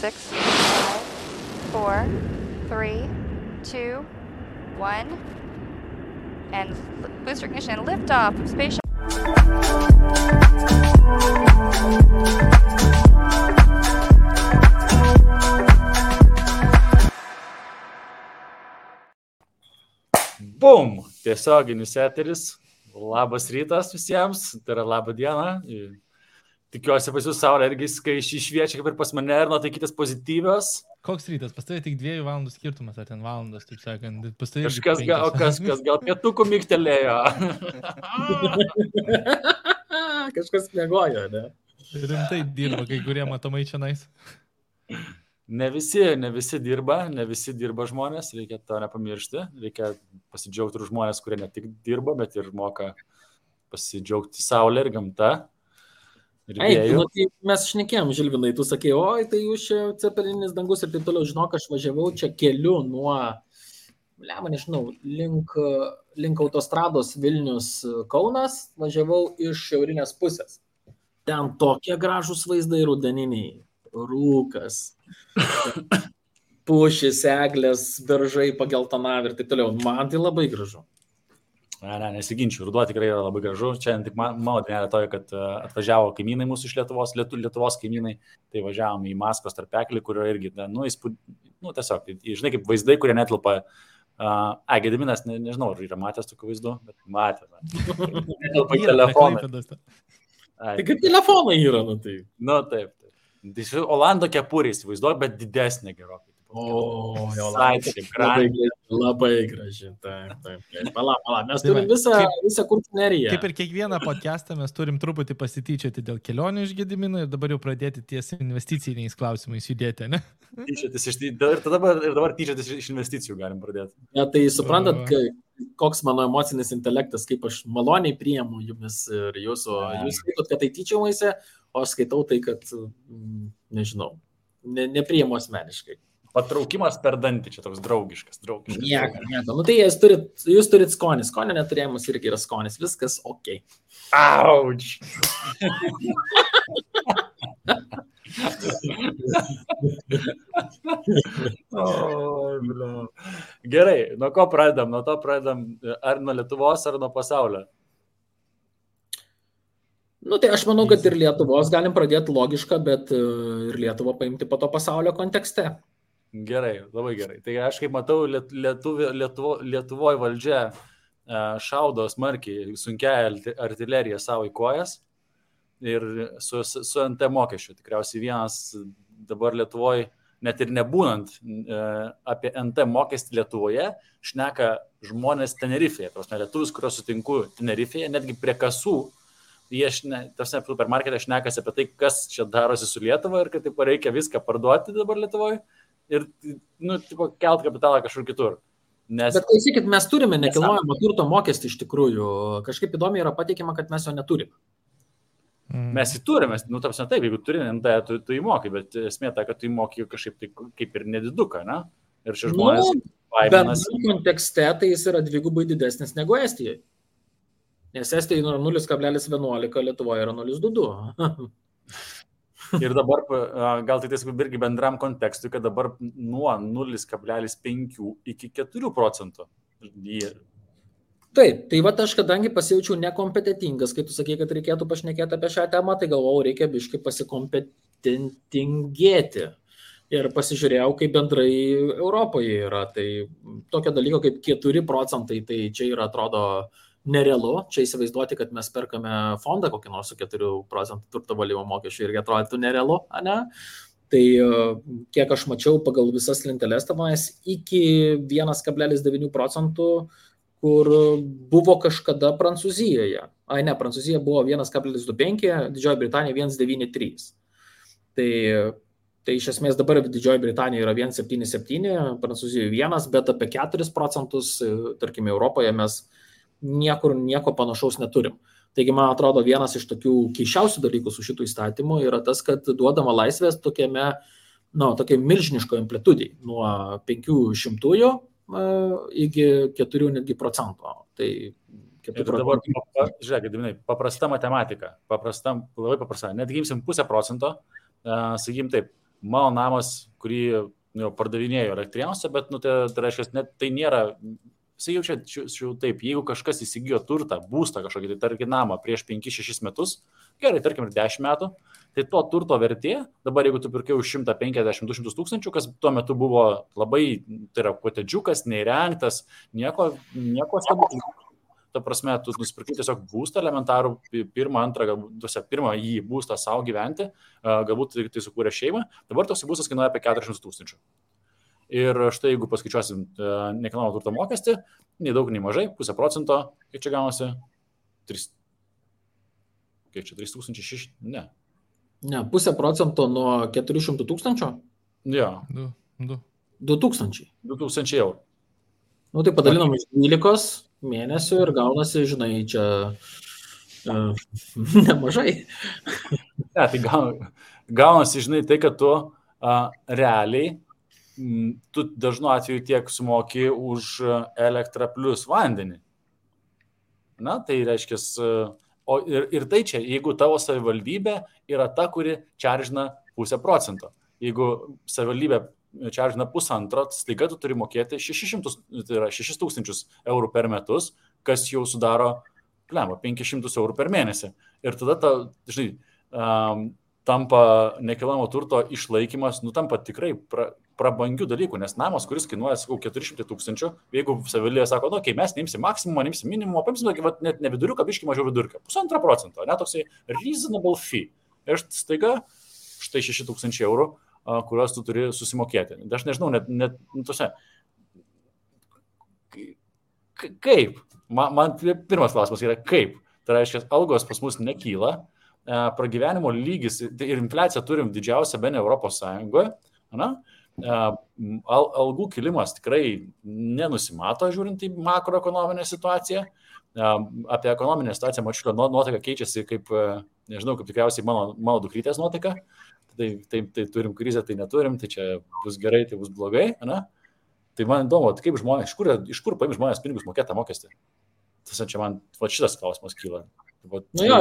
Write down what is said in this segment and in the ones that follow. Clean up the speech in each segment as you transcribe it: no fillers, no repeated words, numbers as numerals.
6, 5, 4, 3, 2, 1, and booster ignition and liftoff of Space Shuttle. Bum! Tiesioginis eteris. Labas rytas visiems, tai yra laba diena. Tikiuosi pas jūs saulė irgi šviečia kaip ir pas mane ir nuotaikytės pozityvios. Koks rytas? Pas tavai tik 2 valandų skirtumas, ar ten valandos, taip sakant. Pas tavai Kažkas gal pietukų mygtelėjo. Kažkas miegojo, ne? Rimtai dirba, kai kurie matomai čia nais. Ne visi dirba žmonės, reikia to nepamiršti. Reikia pasidžiaugti ir žmonės, kurie ne tik dirba, bet ir moka pasidžiaugti saulė ir gamta. Mes šnekėjom, Žilvinai, tu sakei, oi, tai jūs čia cepelinis dangus ir taip toliau, žinok, aš važiavau čia keliu nuo, nežinau, link autostrados Vilnius Kaunas, važiavau iš šiaurinės pusės. Ten tokie gražūs vaizdai rudeniniai, rūkas, pušys, eglės, beržai pageltonavę ir taip toliau. Man tai labai gražu. Ne, nesiginčiu, ruduo tikrai yra labai gražu. Čia tik mano dienelė toje, kad atvažiavo kaimynai mūsų iš Lietuvos kaimynai, tai važiavom į Maskvos tarpeklį, kurio irgi, tiesiog, žinai, kaip vaizdai, kurie netilpa. Gediminas, nežinau, ar yra matęs tokių vaizdų, bet matė. Netilpa į telefoną. Tai kaip telefonai yra, tai. Taip. Tai Olando kepurės vaizduoju, bet didesnė gerokai. Labai graži. Taip. Pala. Mes turim visą kurtineriją. Kaip ir kiekvieną podcastą mes turim truputį pasityčioti dėl kelionių iš Gedimino ir dabar jau pradėti ties investiciniais klausimais judėti, ne? Ir dabar tyčiotis iš investicijų galim pradėti. Ja, tai suprantat, koks mano emocinis intelektas, kaip aš maloniai priimu jumis ir jūsų. Jūs skaitot, kad tai tyčiomaisi, o aš skaitau tai, kad, nežinau, nepriimu asmeniškai. Patraukimas per dantį, čia toks draugiškas. Nieko. Tai jūs turit skonį. Skonio neturėjimas irgi yra skonis. Viskas ok. Auč. Gerai, nuo ko pradedam? Nuo to pradedam ar nuo Lietuvos, ar nuo pasaulio? Tai aš manau, kad ir Lietuvos galim pradėti logišką, bet ir Lietuvą paimti po to pasaulio kontekste. Gerai, labai gerai. Tai aš kaip matau, Lietuvoje valdžia šaudo smarkiai sunkia artilerija savo į kojas ir su NT mokesčiu. Tikriausiai vienas dabar Lietuvoje, net ir nebūnant apie NT mokestį Lietuvoje, šneka žmonės Tenerifėje. Lietuvius, kuriuos sutinku Tenerifėje, netgi prie kasų, jie supermarkete šnekasi apie tai, kas čia darosi su Lietuva ir kad taip reikia viską parduoti dabar Lietuvoje. Ir, kelt kapitalą kažkur kitur. Bet klausykit, mes turime nekilnojamo turto mokestį iš tikrųjų. Kažkaip įdomiai yra pateikiama, kad mes jo neturime. Mes jį turime, taip, jeigu turi, tu įmokai, bet esmė ta, kad tu įmokai kažkaip tai, kaip ir nediduką, ne? Ir šie žmonės baiminasi. Bet kontekste tai jis yra dvigubai didesnis negu Estijoje. Nes Estijoje yra 0,11, Lietuvoje yra 0,22. Ir dabar, gal tai irgi bendram kontekstui, kad dabar nuo 0,5 iki 4%. Taip, tai aš kadangi pasijaučiau nekompetentingas, kai tu sakei, kad reikėtų pašnekėti apie šią temą, tai galvojau, reikia biškai pasikompetentingėti. Ir pasižiūrėjau, kaip bendrai Europoje yra. Tai tokio dalyko kaip 4%, tai čia yra, atrodo, nerealu. Čia įsivaizduoti, kad mes perkame fondą kokį nors su 4% turto valymo mokesčių irgi atrodytų nerealu, ne? Tai kiek aš mačiau pagal visas lenteles tenais iki 1,9%, kur buvo kažkada Prancūzijoje. Prancūzija buvo 1,25, Didžioji Britanija 1,93. Tai iš esmės dabar Didžioji Britanija yra 1,77, Prancūzijoje 1, bet apie 4%, tarkime, Europoje mes nieko panašaus neturim. Taigi, man atrodo, vienas iš tokių keiščiausių dalykų su šitų įstatymų yra tas, kad duodama laisvės tokiai milžiniško amplitudai nuo 500 iki 4 netgi procento. Tai 4%. Dabar, žiūrėk, paprasta matematika, labai paprasta. Netgi imsim 0,5%, sakykim taip, mano namas, kurį pardavinėjo Elektrėnuose, bet, tai reiškia, net tai nėra, jisai jau taip, jeigu kažkas įsigijo turtą, būstą kažkokį, tai tarkim namą prieš 5-6 metus, gerai, tarkim ir 10 metų, tai to turto vertė, dabar jeigu tu pirkai už 150-200 tūkstančių, kas tuo metu buvo labai, tai yra kotedžiukas, neįrengtas, nieko stebuklingo. Ta prasme, tu nusipirkai tiesiog būstą elementarų, pirmą jį būstą savo gyventi, galbūt tai sukūrė šeimą, dabar toks būstas kainuoja apie 400 tūkstančių. Ir štai jeigu paskaičiuosim nekilnojamo turto mokestį, nei daug, nei mažai, 0,5%, kiek čia gaunasi? 3,600? Ne. Ne, 0,5% nuo 400 tūkstančių? Jo. 2,000. 2,000 eurų. Nu, tai padalinam iš 12 mėnesių ir gaunasi, žinai, čia nemažai. Ne, tai gaunasi, žinai, tai, kad tu realiai, tu dažnu atveju tiek sumoki už elektrą plus vandenį. Na, tai reiškia, ir tai čia, jeigu tavo savivaldybė yra ta, kuri čaržina 0,5%. Jeigu savivaldybė čaržina 1,5, staiga tu turi mokėti 6,000 eurų per metus, kas jau sudaro 500 eurų per mėnesį. Ir tada, žinai, tampa nekilnojamo turto išlaikymas, tampa tikrai prabangių dalykų, nes namas, kuris kainuoja, 400 tūkstančių, jeigu savivaldybė sako, okay, mes neimsim maksimumą, neimsim minimumą, paimsim net ne viduriuką, biškį mažiau vidurką, 1,5%, ne toksai reasonable fee. Ir staiga štai 6,000 eurų, kuriuos tu turi susimokėti. Aš nežinau, net tose. Kaip? Man pirmas klausimas yra kaip. Tai reiškia, algos pas mus nekyla, pragyvenimo lygis ir infliaciją turim didžiausią bene Europos Sąjungoje. Algų kilimas tikrai nenusimato, žiūrint į makroekonominę situaciją. Apie ekonominę situaciją Mačiulio nuotaika keičiasi kaip, nežinau, kaip tikriausiai mano dukrytės nuotaika. Tai turim krizę, tai neturim, tai čia bus gerai, tai bus blogai. Ne? Tai man įdomu, kaip žmonės, iš kur paim žmonės pinigus mokėtą mokestį? Tas čia man šitas klausimas kyla. Nu jo,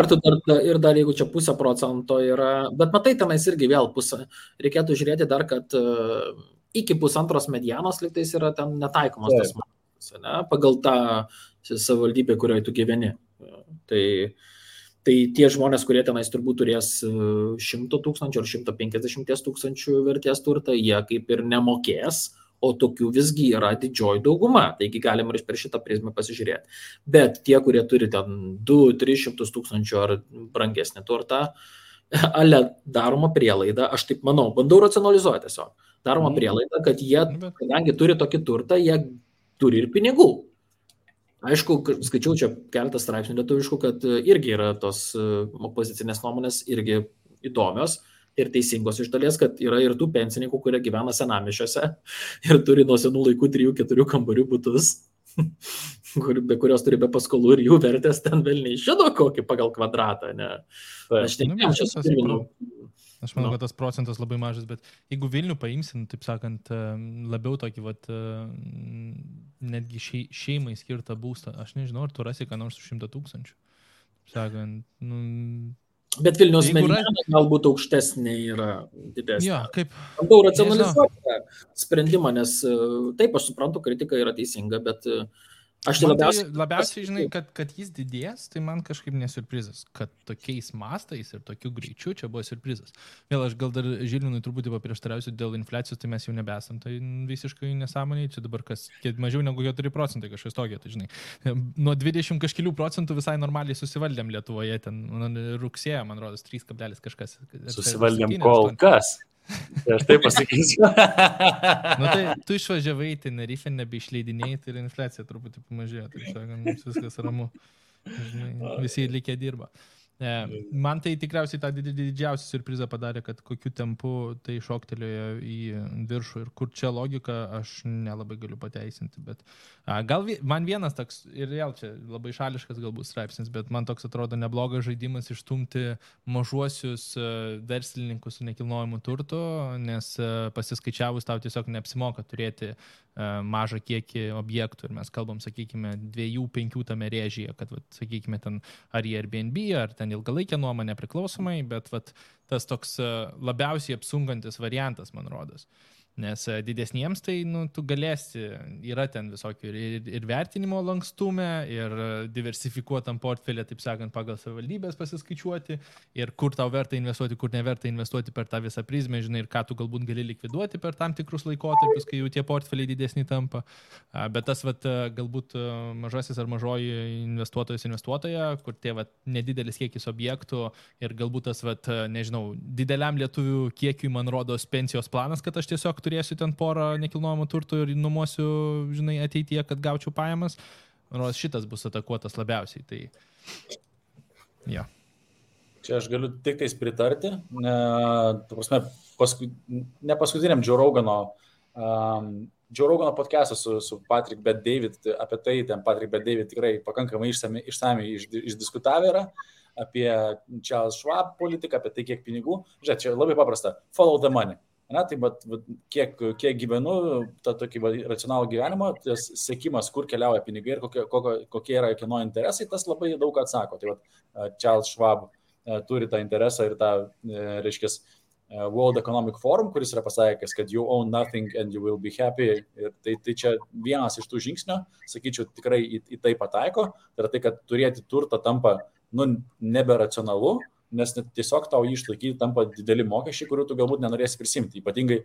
ir dar jeigu čia 0,5% yra, bet matai, tenais irgi vėl pusę. Reikėtų žiūrėti dar, kad iki 1,5 medianos lygtais yra ten netaikomas tas mokestis, ne? Pagal tą savivaldybę, kurioje tu gyveni. Tai tie žmonės, kurie tenais turbūt turės 100 tūkstančių ar 150 tūkstančių vertės turtą, jie kaip ir nemokės, o tokių visgi yra didžioji dauguma, taigi galim ir per šitą prizmę pasižiūrėti. Bet tie, kurie turi ten 200-300 tūkstančių ar brangesnį turtą, ale daroma prielaida, aš taip manau, bandau racionalizuoti tiesiog, daroma prielaida, kad jie, kadangi turi tokį turtą, jie turi ir pinigų. Aišku, skaičiau čia keletą straipsnių lietuviškų, kad irgi yra tos opozicinės nuomonės irgi įdomios ir teisingos iš dalies, kad yra ir tų pensininkų, kurie gyvena senamiesčiuose ir turi nuo senų laikų 3-4 kambarių butus, be kurios turi be paskolų ir jų vertės ten velniai žino kokį pagal kvadratą. Ne? Aš manau, kad tas procentas labai mažas, bet jeigu Vilnių paimsim, taip sakant, labiau tokį, netgi šeimai skirtą būstą, aš nežinau, ar tu rasi ką nors už 100 tūkstančių. Sakant, Bet Vilniaus mediana galbūt aukštesnė yra didesnė. Jo, kaip... Bandau racionalizuoti tą sprendimą, nes taip, aš suprantu, kritika yra teisinga, bet aš tai labiausiai žinai, kad jis didės, tai man kažkaip nesurprizas, kad tokiais mastais ir tokiu greičiu čia buvo surprizas. Vėl aš gal dar Žilvinui truputį paprieštarausiu dėl infliacijos, tai mes jau nebesam, tai visiškai nesąmoniai, čia dabar mažiau negu 4% kažkas tokio, tai žinai. Nuo 20 kažkelių procentų visai normaliai susivaldėm Lietuvoje, ten rugsėjo, man rodos, 3 kablelis kažkas. Susivaldėm kol kas. Tai aš taip pasakysiu. Tai tu išvažiavai, tai Tenerife nebeišleidinėjai, tai ir infliacija truputį pamažėjo, tai sakant, viskas ramu. Žinai, visi likę dirba. Man tai tikriausiai tą didžiausią surprizą padarė, kad kokiu tempu tai šoktelėjo į viršų ir kur čia logika, aš nelabai galiu pateisinti, bet gal man vienas toks, ir vėl čia labai šališkas galbūt straipsnis, bet man toks atrodo neblogas žaidimas išstumti mažuosius verslininkus su nekilnojimu turtu, nes pasiskaičiavus tau tiesiog neapsimoka turėti mažą kiekį objektų ir mes kalbam, sakykime, 2-5 tame rėžyje, kad, sakykime, ten ar Airbnb, ar ten ilgalaikė nuoma nepriklausomai, bet tas toks labiausiai apsunkantis variantas, man rodos. Nes didesniems tai, tu galėsi, yra ten visokių ir vertinimo lankstume, ir diversifikuotam portfelė, taip sakant, pagal savivaldybės pasiskaičiuoti, ir kur tau verta investuoti, kur neverta investuoti per tą visą prizmę, žinai, ir ką tu galbūt gali likviduoti per tam tikrus laikotarpius, kai jau tie portfeliai didesni tampa. Bet tas, galbūt mažasis ar mažoji investuotoja, kur tie nedidelis kiekis objektų ir galbūt tas, nežinau, dideliam lietuvių kiekiui, man rodos, pensijos planas, kad aš tiesiog turėsiu ten porą nekilnojamo turto ir nuomosiu, žinai, ateityje, kad gaučiau pajamas. Nors šitas bus atakuotas labiausiai. Tai, ja. Čia aš galiu tik tais pritarti. Ne paskutiniam Joe Rogano podcast'ą su Patrick Bet-David, apie tai ten Patrick Bet-David tikrai pakankamai išsamiai išdiskutavę yra, apie Charles Schwab politiką, apie tai, kiek pinigų. Žiūrėk, čia labai paprasta. Follow the money. Na, tai kiek gyvenu, tą tokį racionalų gyvenimą, tas sekimas, kur keliauja pinigai ir kokie yra kieno interesai, tas labai daug atsako. Tai Charles Schwab turi tą interesą ir tą, reiškia, World Economic Forum, kuris yra pasakęs, kad you own nothing and you will be happy. Ir tai čia vienas iš tų žingsnių, sakyčiau, tikrai į tai pataiko. Tai yra tai, kad turėti turtą tampa, neberacionalu, nes tiesiog tau jį išlaikyti tampa dideli mokesčiai, kurių tu galbūt nenorėsi prisimti. Ypatingai,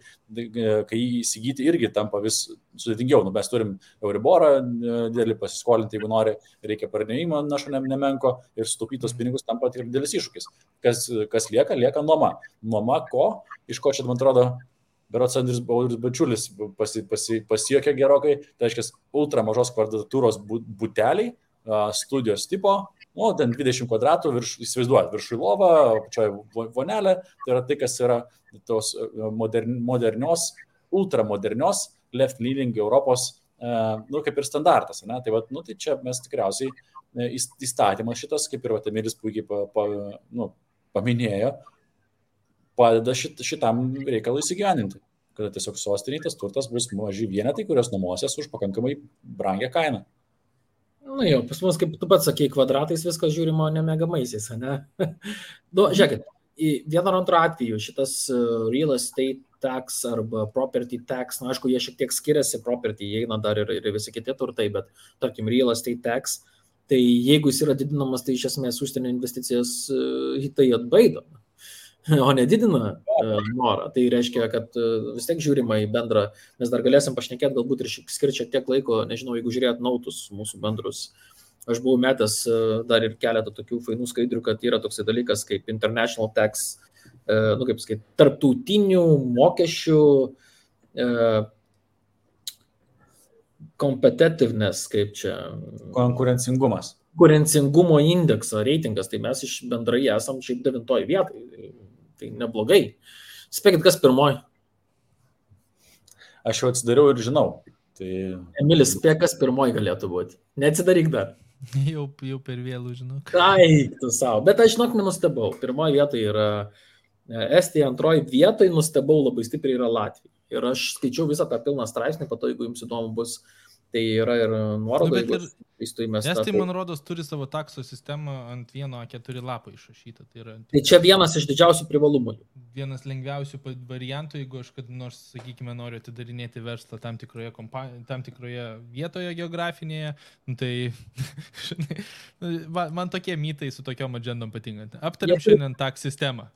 kai jį įsigyti irgi tampa vis sudėtingiau. Mes turim Euriborą didelį pasiskolinti, jeigu nori, reikia pardavinimo našo nemenko ir sutaupytos pinigus tampa tik didelis iššūkis. Kas lieka nuoma. Nuoma ko? Iš ko čia, man atrodo, berods Andrius Bačiulis pasijuokė gerokai, tai reiškia ultra mažos kvadratūros buteliai, studijos tipo, ten 20 kvadratų, įsivaizduojat, viršui lova, pačioje vonelė, tai yra tai, kas yra tos modernios, ultramodernios, left-leaning Europos, kaip ir standartas. Ne? Tai, tai čia mes tikriausiai įstatymas šitas, kaip ir Emilis puikiai paminėjo, padeda šitam reikalui įsigyveninti, kad tiesiog sostiniai tas turtas bus maži vienetai, kurios nuomosies už pakankamai brangią kainą. Pas mus, kaip tu pats sakei, kvadratais viskas žiūrimo ne megamaisiais, ne? Žiūrėkit, vieno ar antro atveju šitas real estate tax arba property tax, aišku, jie šiek tiek skiriasi, property įeina dar ir visi kiti turtai, bet tarkim real estate tax, tai jeigu jis yra didinamas, tai iš esmės užsienio investicijas tai atbaido, o nedidina norą. Tai reiškia, kad vis tiek žiūrima į bendrą, mes dar galėsim pašnekėti galbūt ir skirti šiek tiek laiko, nežinau, jeigu žiūrėt nautus mūsų bendrus. Aš buvau metęs dar ir keletą tokių fainų skaidrių, kad yra toksai dalykas kaip international tax, kaip sakyti, tarptautinių mokesčių competitiveness, kaip čia. Konkurencingumo indekso reitingas, tai mes iš bendrai esam šiaip 9 vietoj. Tai neblogai. Spėkit, kas pirmoji? Aš jau atsidariau ir žinau. Tai... Emilis, spėk, kas pirmoji galėtų būti. Neatsidaryk dar. Jau per vėlų, žinau. Eik tu savo. Bet aš, žinok, nenustebau. Pirmoji vietoj yra Estija, antroji vietoj nustebau labai stipriai yra Latvija. Ir aš skaičiau visą tą pilną straipsnį, po to, jeigu jums įdomu bus, tai yra ir nuoroda. Estai, man rodos, turi savo takso sistemą ant vieno A4 lapo išrašytą. Tai čia vienas iš didžiausių privalumų. Vienas lengviausių variantų, jeigu aš kad nors, sakykime, noriu atidarinėti verslą tam tikroje vietoje geografinėje, tai man tokie mytai su tokiom agendom patinka. Aptariam šiandien tax sistemą.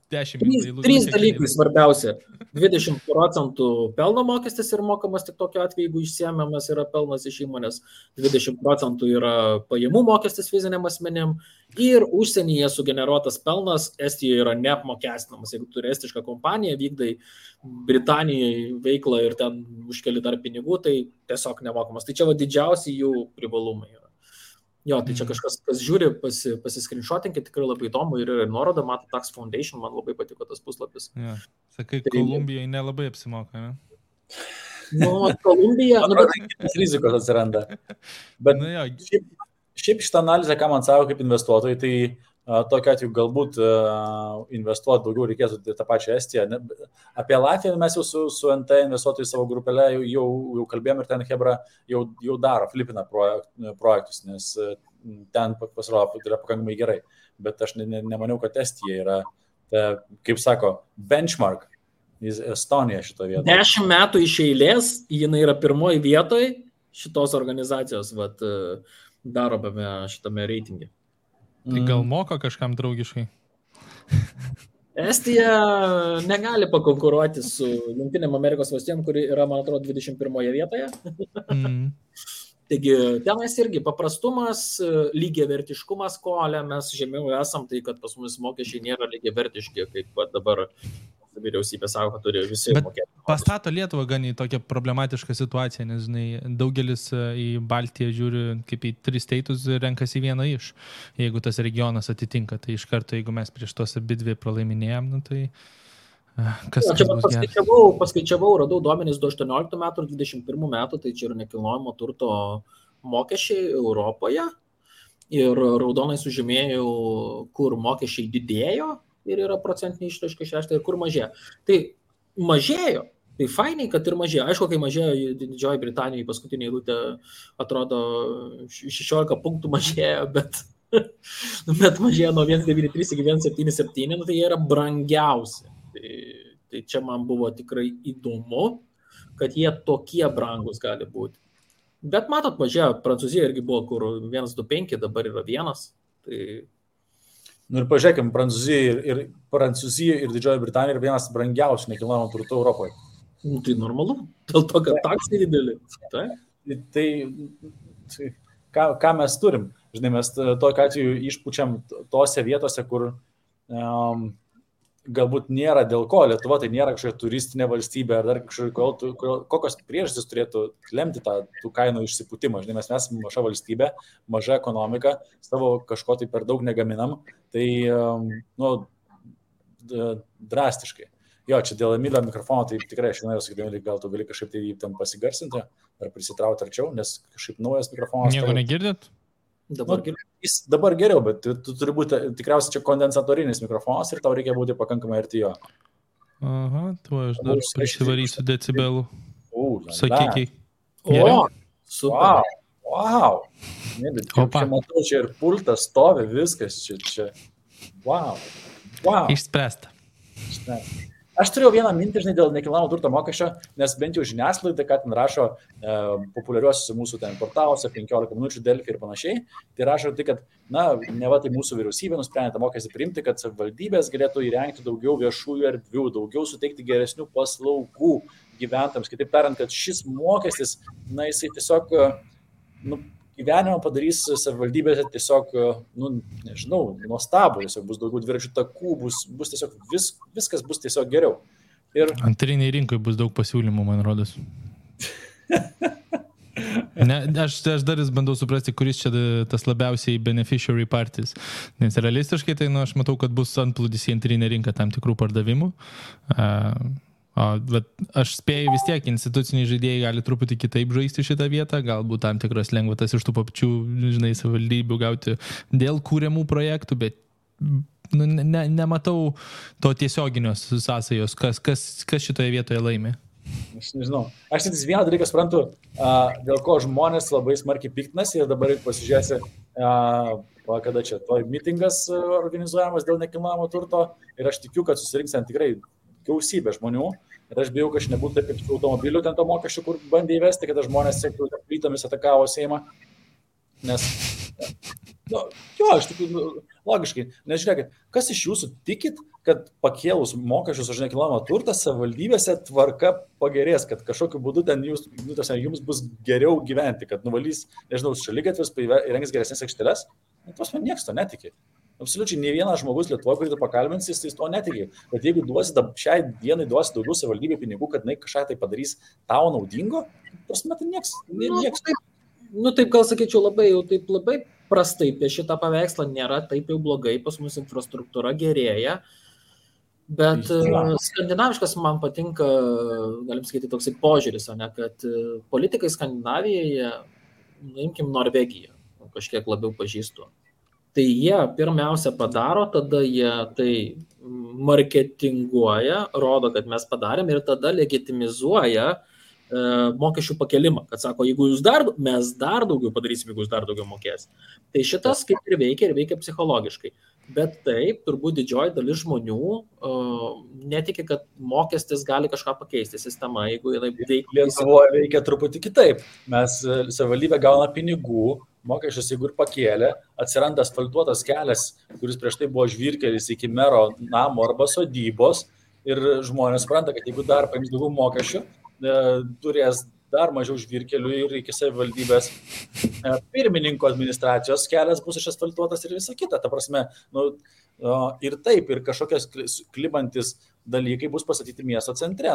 10 Trys dalykai svarbiausia. 20% pelno mokestis yra mokamas tik tokiu atveju, jeigu išsiėmiamas yra pelnas iš įmonės, 20% yra pajamų mokestis fiziniam asmenėm ir užsienyje sugeneruotas pelnas Estijoje yra neapmokestinamas. Jeigu turi estišką kompaniją, vykdai Britanijoje veiklą ir ten užkeli dar pinigų, tai tiesiog nemokamas. Tai čia didžiausi jų privalumai yra. Jo, tai čia kažkas, kas žiūri, pasiskrinšotinkit, tikrai labai įdomu ir nuoroda, mato Tax Foundation, man labai patiko tas puslapis. Ja. Sakai, tai... Kolumbijai nelabai apsimoka, ne? Kolumbija... rizikos atsiranda. Bet šiaip šitą analizę, ką man savo kaip investuotojai, tai tokiu atveju galbūt investuoti daugiau reikėtų tą pačią Estiją. Apie Latviją mes jau su NT investuotojai savo grupelę jau kalbėjom ir ten Hebra jau daro, flipina projektus, nes ten pasirodo yra pakankamai gerai. Bet aš nemaniau, kad Estija yra kaip sako, benchmark. Estonija šito vietoje. 10 metų iš eilės, jinai yra pirmoji vietoje šitos organizacijos, darome šitame reitinge. Tai gal moka kažkam draugiškai? Estija negali pakonkuruoti su Jungtinėm Amerikos valstijom, kuri yra, man atrodo, 21 vietoje. Taigi, tenais irgi paprastumas, lygiavertiškumas, ko mes žemiau esam, tai kad pas mus mokesčiai nėra lygiavertiški, kaip dabar vyriausybė sako, kad turi visi mokėti. Pastato Lietuvą gan į tokią problematišką situaciją, nes daugelis į Baltiją žiūri kaip į 3 steitus ir renkasi vieną iš. Jeigu tas regionas atitinka, tai iš karto, jeigu mes prieš tos abidvi pralaiminėjom, tai kas bus gerai. Paskaičiavau, radau duomenys 2018 metų ir 2021 metų, tai čia yra nekilnojamo turto mokesčiai Europoje ir raudonai sužymėjau, kur mokesčiai didėjo ir yra procentinė išraiška 6 ir kur mažėjo. Tai mažėjo, tai fainiai, kad ir mažėjo. Aišku, kai mažėjo Didžioji Britanija, paskutinė eilutė atrodo 16 punktų mažėjo, bet mažėjo nuo 1,93 iki 1,77, tai jie yra brangiausi. Tai čia man buvo tikrai įdomu, kad jie tokie brangus gali būti. Bet matot, mažėjo, Prancūzija irgi buvo, kur 1,25, dabar yra 1. Tai ir pažiūrėkime, Prancūzija ir Didžioji Britanija yra vienas brangiausių nekilnojamo turto Europoje. Tai normalu, dėl to, kad taksai dideli. Tai ką mes turim? Žinai, mes tokiu atveju išpučiam tose vietose, kur galbūt nėra dėl ko. Lietuva tai nėra kažkokia turistinė valstybė ar dar kažkokia, kokios priežastys turėtų lemti tų kainų išsiputimą. Žinai, mes esame maža valstybė, maža ekonomika, savo kažko tai per daug negaminam, tai drastiškai. Jo, čia dėl Emilio mikrofono, tai tikrai aš norėjau sakyti, gal tu gali kažkaip tai jį tam pasigarsinti ar prisitrauti arčiau, nes kažkaip naujas mikrofonas. Nieko negirdėt? Dabar geriau, bet tu turi būti tikriausiai čia kondensatorinis mikrofonas ir tau reikia būti pakankamai arti jo. Aha, tu aš dar prisivarysiu decibelų. Sakykiai. Super. Wow. Čia matau, čia ir pultas stovi, viskas čia. Wow. Išspręsta. Aš turėjau vieną mintį, žinai, dėl nekilnojamo turto mokesčio, nes bent jau žiniasklaida, kad ten rašo populiariuosiuose mūsų ten portaluose, 15 minučių Delfi ir panašiai, tai rašo tai, kad, neva tai mūsų vyriausybė nusprendė tą mokestį priimti, kad savivaldybės galėtų įrengti daugiau viešųjų erdvių, daugiau suteikti geresnių paslaugų gyventojams. Kitaip tariant, kad šis mokestis, jisai tiesiog, gyvenimą padarys savivaldybėse tiesiog, nežinau, nuostabų, tiesiog bus daugiau dviračių takų, bus tiesiog viskas bus tiesiog geriau. Ir antriniai rinkai bus daug pasiūlymų, man rodos. Aš dar bandau suprasti, kuris čia tas labiausiai beneficiary parties. Nes realistiškai tai, aš matau, kad bus antplūdis į antrinę rinką tam tikrų pardavimų. Bet aš spėju vis tiek, instituciniai žaidėjai gali truputį kitaip žaisti šitą vietą, galbūt tam tikras lengvatas iš tų pačių, savivaldybių gauti dėl kūriamų projektų, bet nematau to tiesioginios sąsajos, kas šitoje vietoje laimė. Aš nežinau. Aš tik vieną dalyką suprantu, dėl ko žmonės labai smarkiai piktinasi ir dabar pasižiūrėsi, kada čia mitingas organizuojamas dėl nekilnojamo turto ir aš tikiu, kad susirinks ten tikrai gausybė žmonių ir aš bijau, kad aš nebūtų taip kaip automobilių ten to mokesčių, kur bandė įvesti, kada žmonės plytomis atakavo Seimą. Nes, aš tikiu, logiškai, nes žiūrėkit, kas iš jūsų tikit, kad pakėlus mokesčius už nekilnojamą turtą savivaldybėse tvarka pagerės, kad kažkokiu būdu ten jums bus geriau gyventi, kad nuvalys, nežinau, šaligatvius, įrengs geresnės aikšteles, tos man nieks to netiki. Absoliučiai ne vienas žmogus Lietuvoje, kurį tu pakalbinsi, jis to netiki. Bet jeigu šiai dienai duosi daugiau savivaldybė pinigų, kad kažką tai padarys tau naudingo, prasme, tai nieks. Taip gal sakyčiau labai prastai apie šitą paveikslą nėra taip jau blogai, pas mus infrastruktūra gerėja, bet skandinaviškas man patinka, galim sakyti, toksai požiūris, kad politikai Skandinavijoje, imkim Norvegiją, kažkiek labiau pažįstu. Tai jie pirmiausia padaro, tada jie tai marketinguoja, rodo, kad mes padarėm ir tada legitimizuoja mokesčių pakelimą, kad sako, jeigu mes dar daugiau padarysim, jeigu jūs dar daugiau mokės. Tai šitas kaip ir veikia psichologiškai. Bet taip, turbūt didžioji dalis žmonių netiki, kad mokestis gali kažką pakeisti sistemą, jeigu jinai veikia. Lietuvoje veikia truputį kitaip. Mes savivaldybė gauna pinigų, mokesčius jeigu ir pakėlė, atsiranda asfaltuotas kelias, kuris prieš tai buvo žvyrkelis iki mero namo arba sodybos ir žmonės supranta, kad jeigu dar paims daugiau mokesčių, turės dar mažiau žvyrkelių ir iki savivaldybės pirmininko administracijos kelias bus išasfaltuotas ir visa kita. Ta prasme, ir taip, ir kažkokios klibantis dalykai bus pastatyti miesto centre.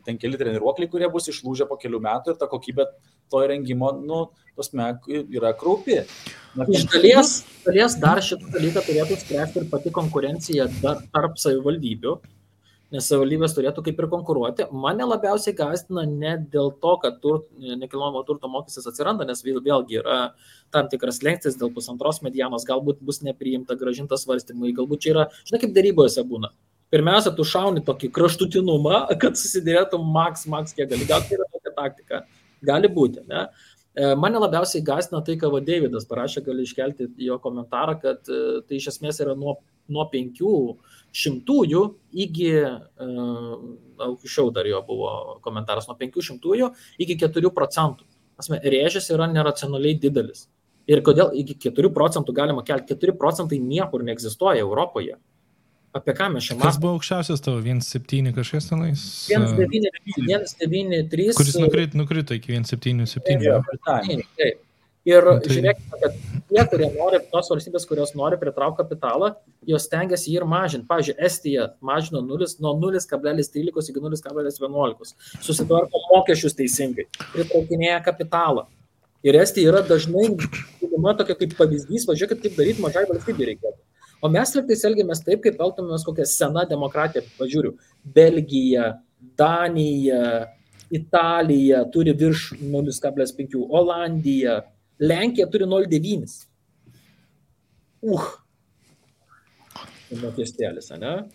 Ten keli treniruokliai, kurie bus išlūžę po kelių metų ir ta kokybė to įrengimo, yra kraupi. Iš dalies dar šitą dalyką turėtų spręsti ir pati konkurencija tarp savivaldybių. Nes savivaldybės turėtų kaip ir konkuruoti. Mane labiausiai gąsdina ne dėl to, kad nekilnojamo turto mokestis atsiranda, nes vėlgi yra tam tikras lengstis dėl 1,5 medianos, galbūt bus nepriimta, grąžintas svarstymai, galbūt čia yra, žinai, kaip darybose būna. Pirmiausia, tu šauni tokį kraštutinumą, kad susidėrėtų maks, kiek gali. Gal tai yra tokia taktika. Gali būti, ne? Mane labiausiai gąsdina tai, ką Davidas parašė, gali iškelti jo komentarą, kad tai iš esmės yra nuo 500 iki, aukščiau dar jo buvo komentaras, nuo 500 iki 4%. Rėžis yra neracionaliai didelis. Ir kodėl iki 4% galima kelti? 4% niekur neegzistuoja Europoje. Apie ką mes čia matome? Kas buvo aukščiausias tavo? 1,7 kažkas tenais? 1,93. Kuris nukrito iki 1,77. Taip. Ir žiūrėkime, kad tie, kurie nori, tos valstybės, kurios nori pritraukti kapitalą, jos stengiasi jį ir mažinti. Pavyzdžiui, Estija mažino nuo 0,13 iki 0,11. Susitvarko mokesčius teisingai. Pritraukinėja kapitalą. Ir Estija yra dažnai, tokia kaip pavyzdys, važiuokit, kaip daryti mažai valstybei reikėtų. O mes liktais elgiamės taip, kaip elgtumės kokią seną demokratiją. Pažiūriu, Belgija, Danija, Italija turi virš 0,5, Olandija, Lenkija turi 0,9. Mokestėlis, ne?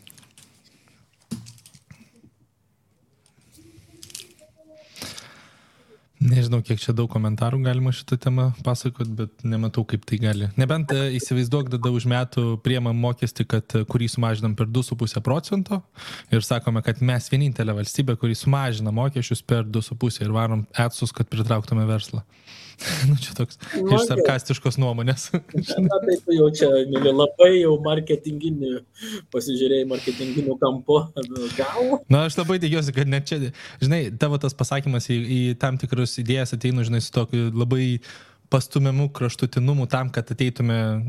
Nežinau, kiek čia daug komentarų galima šitą temą pasakot, bet nematau, kaip tai gali. Nebent įsivaizduok, tada už metų priemam mokestį, kurį sumažinam per 2,5% ir sakome, kad mes vienintelė valstybė, kurį sumažina mokesčius per 2,5% ir varom etsus, kad pritrauktume verslą. Čia toks iš sarkastiškos nuomonės. Tai tu jau čia, mėly, labai jau marketinginių, pasižiūrėjai marketinginių kampo. Gal? Na, aš labai tikiuosi, kad net čia, žinai, tavo tas pasakymas į tam tikrus idėjas ateinu, žinai, su tokiu labai pastumiamų kraštutinumu tam, kad ateitume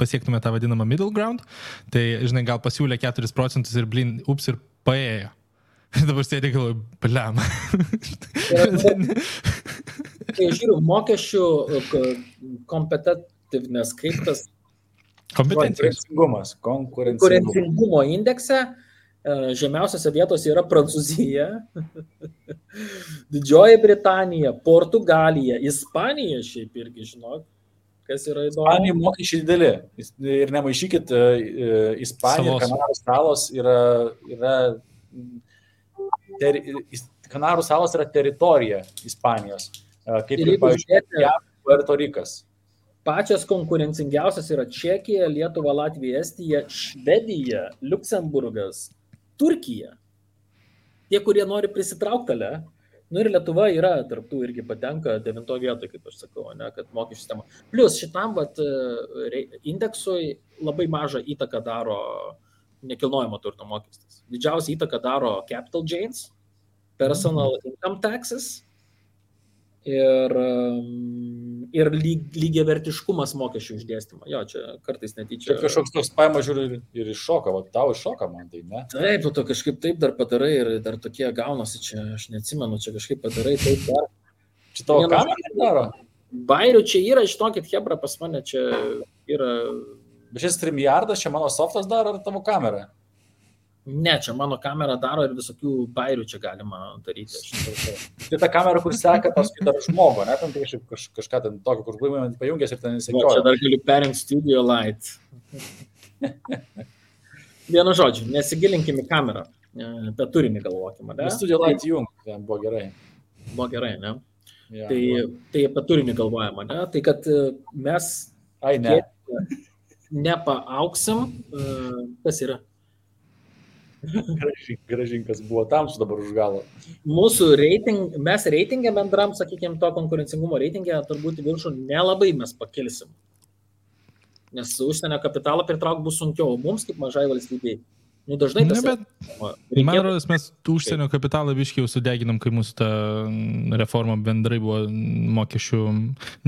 pasiektume tą vadinamą middle ground. Tai, žinai, gal pasiūlė 4% ir ir paėjo. Ir dabar sėdė galvoju, bliam. Kai žiūriu, mokesčių competitiveness, kaip tas konkurencingumo indekse, žemiausiose vietose yra Prancūzija, Didžioji Britanija, Portugalija, Ispanija šiaip irgi, žinok, kas yra įdomu. Ispanija mokesčiai dideli. Ir nemaišykit, Ispanija ir Kanarų salos yra Kanarų salos yra teritorija Ispanijos. Kaip ir, pavyzdžiui, Puerto Rikas. Pačios konkurencingiausias yra Čekija, Lietuva, Latvija, Estija, Švedija, Liuksemburgas, Turkija. Tie, kurie nori prisitraukti, ir Lietuva yra tarptų irgi patenka 9 vietoje, kaip aš sakau, ne, kad mokesčių sistema. Plus šitam indeksui labai mažą įtaką daro nekilnojamo turto mokestis. Didžiausia įtaka daro capital gains, personal income taxes ir lygiavertiškumas mokesčių išdėstymo. Jo, čia kartais netyčia. Čia kažkoks toks paima žiūri ir iššoka, tau iššoka man tai, ne? Taip, tu kažkaip taip dar padarai ir dar tokie gaunasi, čia aš neatsimenu, čia kažkaip padarai taip dar. Čia tavo kamera daro? Bairių čia yra, žinokit, hebra pas mane čia yra. Bet šis StreamYardas, čia mano softas daro ar tavo kamera? Ne, čia mano kamera daro ir visokių bairių čia galima daryti. Tai ta kamera, kur seka paskui dar žmogų, ne? Tam tai kažką ten tokio, kur buvimą pajungęs ir ten įsekioja. Čia dar galiu perinkti Studio Light. Vienu žodžiu, nesigilinkim į kamerą, apie turinį galvokime. Studio Light jung, ten buvo gerai. buvo gerai, ne? Ja. Tai apie turinį galvojama, ne? Tai kad mes nepaauksim, kas yra? Gražinkas buvo tamsu dabar už galo. Mūsų mes reitingę bendram, sakykime, to konkurencingumo reitingę turbūt viršų nelabai mes pakilsim. Nes užsienio kapitalą pritraukti bus sunkiau, mums kaip mažai valstybei. Nu, dažnai tas... Man rodos, mes užsienio kapitalą biškiai jau sudeginam, kai mūsų ta reforma bendrai buvo mokesčių,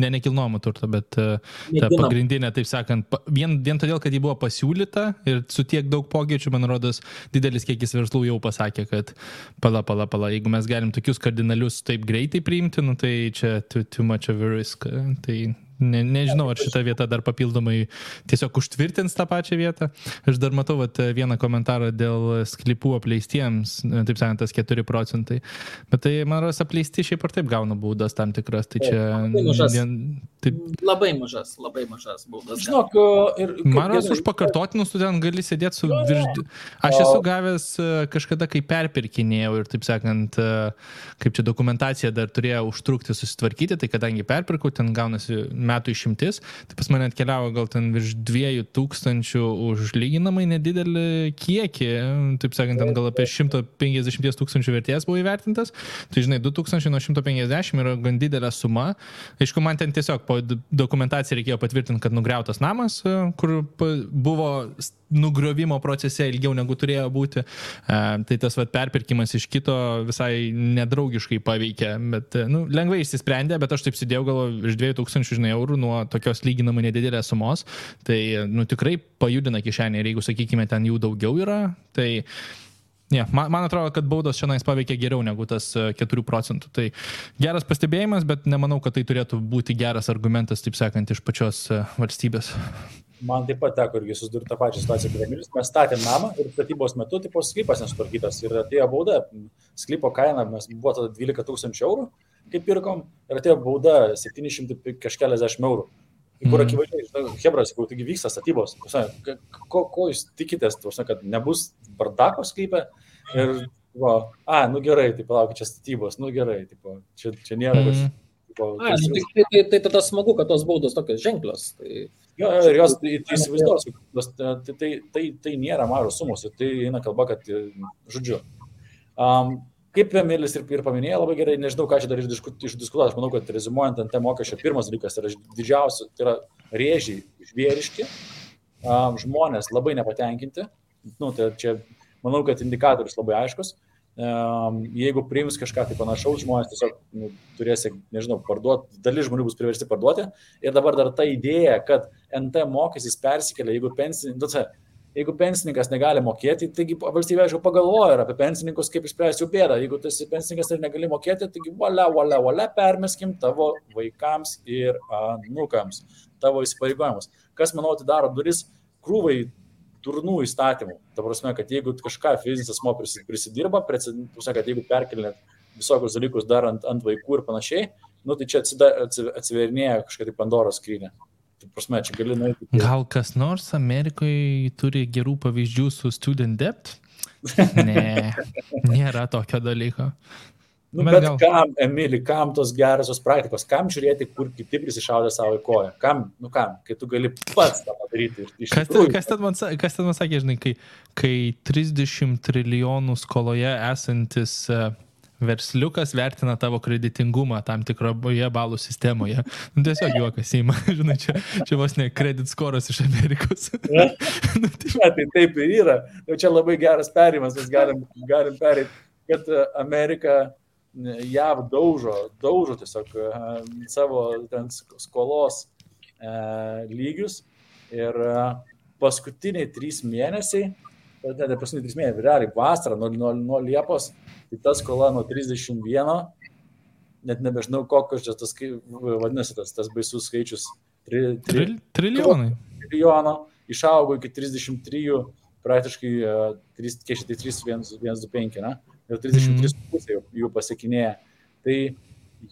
nekilnojamo turto, bet ta pagrindinė, taip sakant, vien todėl, kad ji buvo pasiūlyta ir su tiek daug pokyčių, man rodos, didelis kiekis verslų jau pasakė, kad pala, jeigu mes galim tokius kardinalius taip greitai priimti, nu, tai čia too much of a risk. Tai nežinau, ar šita vieta dar papildomai tiesiog užtvirtins tą pačią vietą. Aš dar matau vieną komentarą dėl sklypų apleistiems, taip sakant, tas 4%. Bet tai, man rodos, apleisti šiaip ar taip gauna baudas tam tikras. Tai čia... Labai mažas baudas. Žinok, man rodos, už pakartotinus tu ten gali sėdėti su virš... Aš esu gavęs kažkada, kai perpirkinėjau ir, taip sakant, kaip čia dokumentacija dar turėjo užtrukti susitvarkyti, tai kadangi perpirkau, ten gaunasi metų išimtis, tai pas mane atkeliavo gal ten virš 2000 už lyginamai nedidelį kiekį, taip sakant, ten gal apie 150 000 vertės buvo įvertintas, tai žinai, 2000 nuo 150 yra gan didelė suma. Aišku, man ten tiesiog po dokumentaciją reikėjo patvirtinti, kad nugriautas namas, kur buvo nugriovimo procese ilgiau negu turėjo būti, tai tas perpirkimas iš kito visai nedraugiškai paveikė, bet lengvai išsisprendė, bet aš taip sėdėjau gal iš 2000 eurų nuo tokios lyginamai nedidelės sumos, tai tikrai pajudina kišenę ir jeigu, sakykime, ten jų daugiau yra, tai man atrodo, kad baudos šiandien paveikia geriau negu tas 4%. Tai geras pastebėjimas, bet nemanau, kad tai turėtų būti geras argumentas, taip sakant, iš pačios valstybės. Man taip pat teko irgi susidurti tą pačią situaciją, kaip Emilis. Mes statėm namą ir statybos metu sklypas nesutvarkytas ir atėjo bauda. Sklypo kaina buvo tada 12 000 eurų, kaip pirkom, ir atėjo bauda 700 kažkeliasdešimt eurų. Kur akivaizdžiai, hebras, jau taigi vyksta statybos. Ko jūs tikitės, kad nebus bardako sklype? Ir, gerai, tai palaukit, čia statybos, gerai, čia nėra kažkaip. Tai tada smagu, kad tos baudos tokios ženklios. Ir jos įsivaizduos, tai nėra mažos sumos, tai eina kalba, kad, žodžiu, kaip Emilis ir paminėjo labai gerai, nežinau, ką čia dar išdiskutuoti, aš manau, kad rezimuojant ant mokesčio, pirmas dalykas yra didžiausia, tai yra rėžiai žvėriški, žmonės labai nepatenkinti, tai čia, manau, kad indikatorius labai aiškus. Jeigu priims kažką tai panašaus, žmonės tiesiog turės, nežinau, parduoti, dalis žmonių bus priversti parduoti. Ir dabar dar ta idėja, kad NT mokestis persikelia, jeigu pensininkas negali mokėti, taigi valstybė, aišku, pagalvoja ir apie pensininkus, kaip išspręsti jų bėdą. Jeigu tas pensininkas ir negali mokėti, taigi valia, permeskim tavo vaikams ir anūkams, tavo įsipareigojimus. Kas, manau, atidaro duris krūvai turnų įstatymų. Ta prasme, kad jeigu kažką fizinis asmuo prisidirba, kad jeigu perkelinėt visokius dalykus dar ant vaikų ir panašiai, tai čia atsiverinėja kažkaip Pandoros skrynia. Ta prasme, čia gali nueiti. Gal kas nors Amerikoje turi gerų pavyzdžių su student debt? Ne, nėra tokio dalyko. Bet kam, Emili, kam tos gerosios praktikos? Kam žiūrėti, kur kiti prisišaudė savo į koją? Kam, kai tu gali pats tą padaryti? Kas ten man sakė, žinai, kai 30 trilijonų skoloje esantis versliukas vertina tavo kreditingumą tam tikroje balų sistemoje. Tiesiog juokas įma, žinai, čia vos ne credit scoras iš Amerikos. Tai taip ir yra. Čia labai geras perėjimas, mes galim perėti, kad Amerika JAV daužo tiesiog savo ten skolos lygius ir paskutiniai 3 mėnesiai, realiai vasarą nuo Liepos, tai ta skola nuo 31, net nebežinau, kokios čia tas, vadinasi, tas baisus skaičius, trilijono, išaugo iki 33, praktiškai 3,125, ne? Ir 33,5 jų pasiekinėja. Tai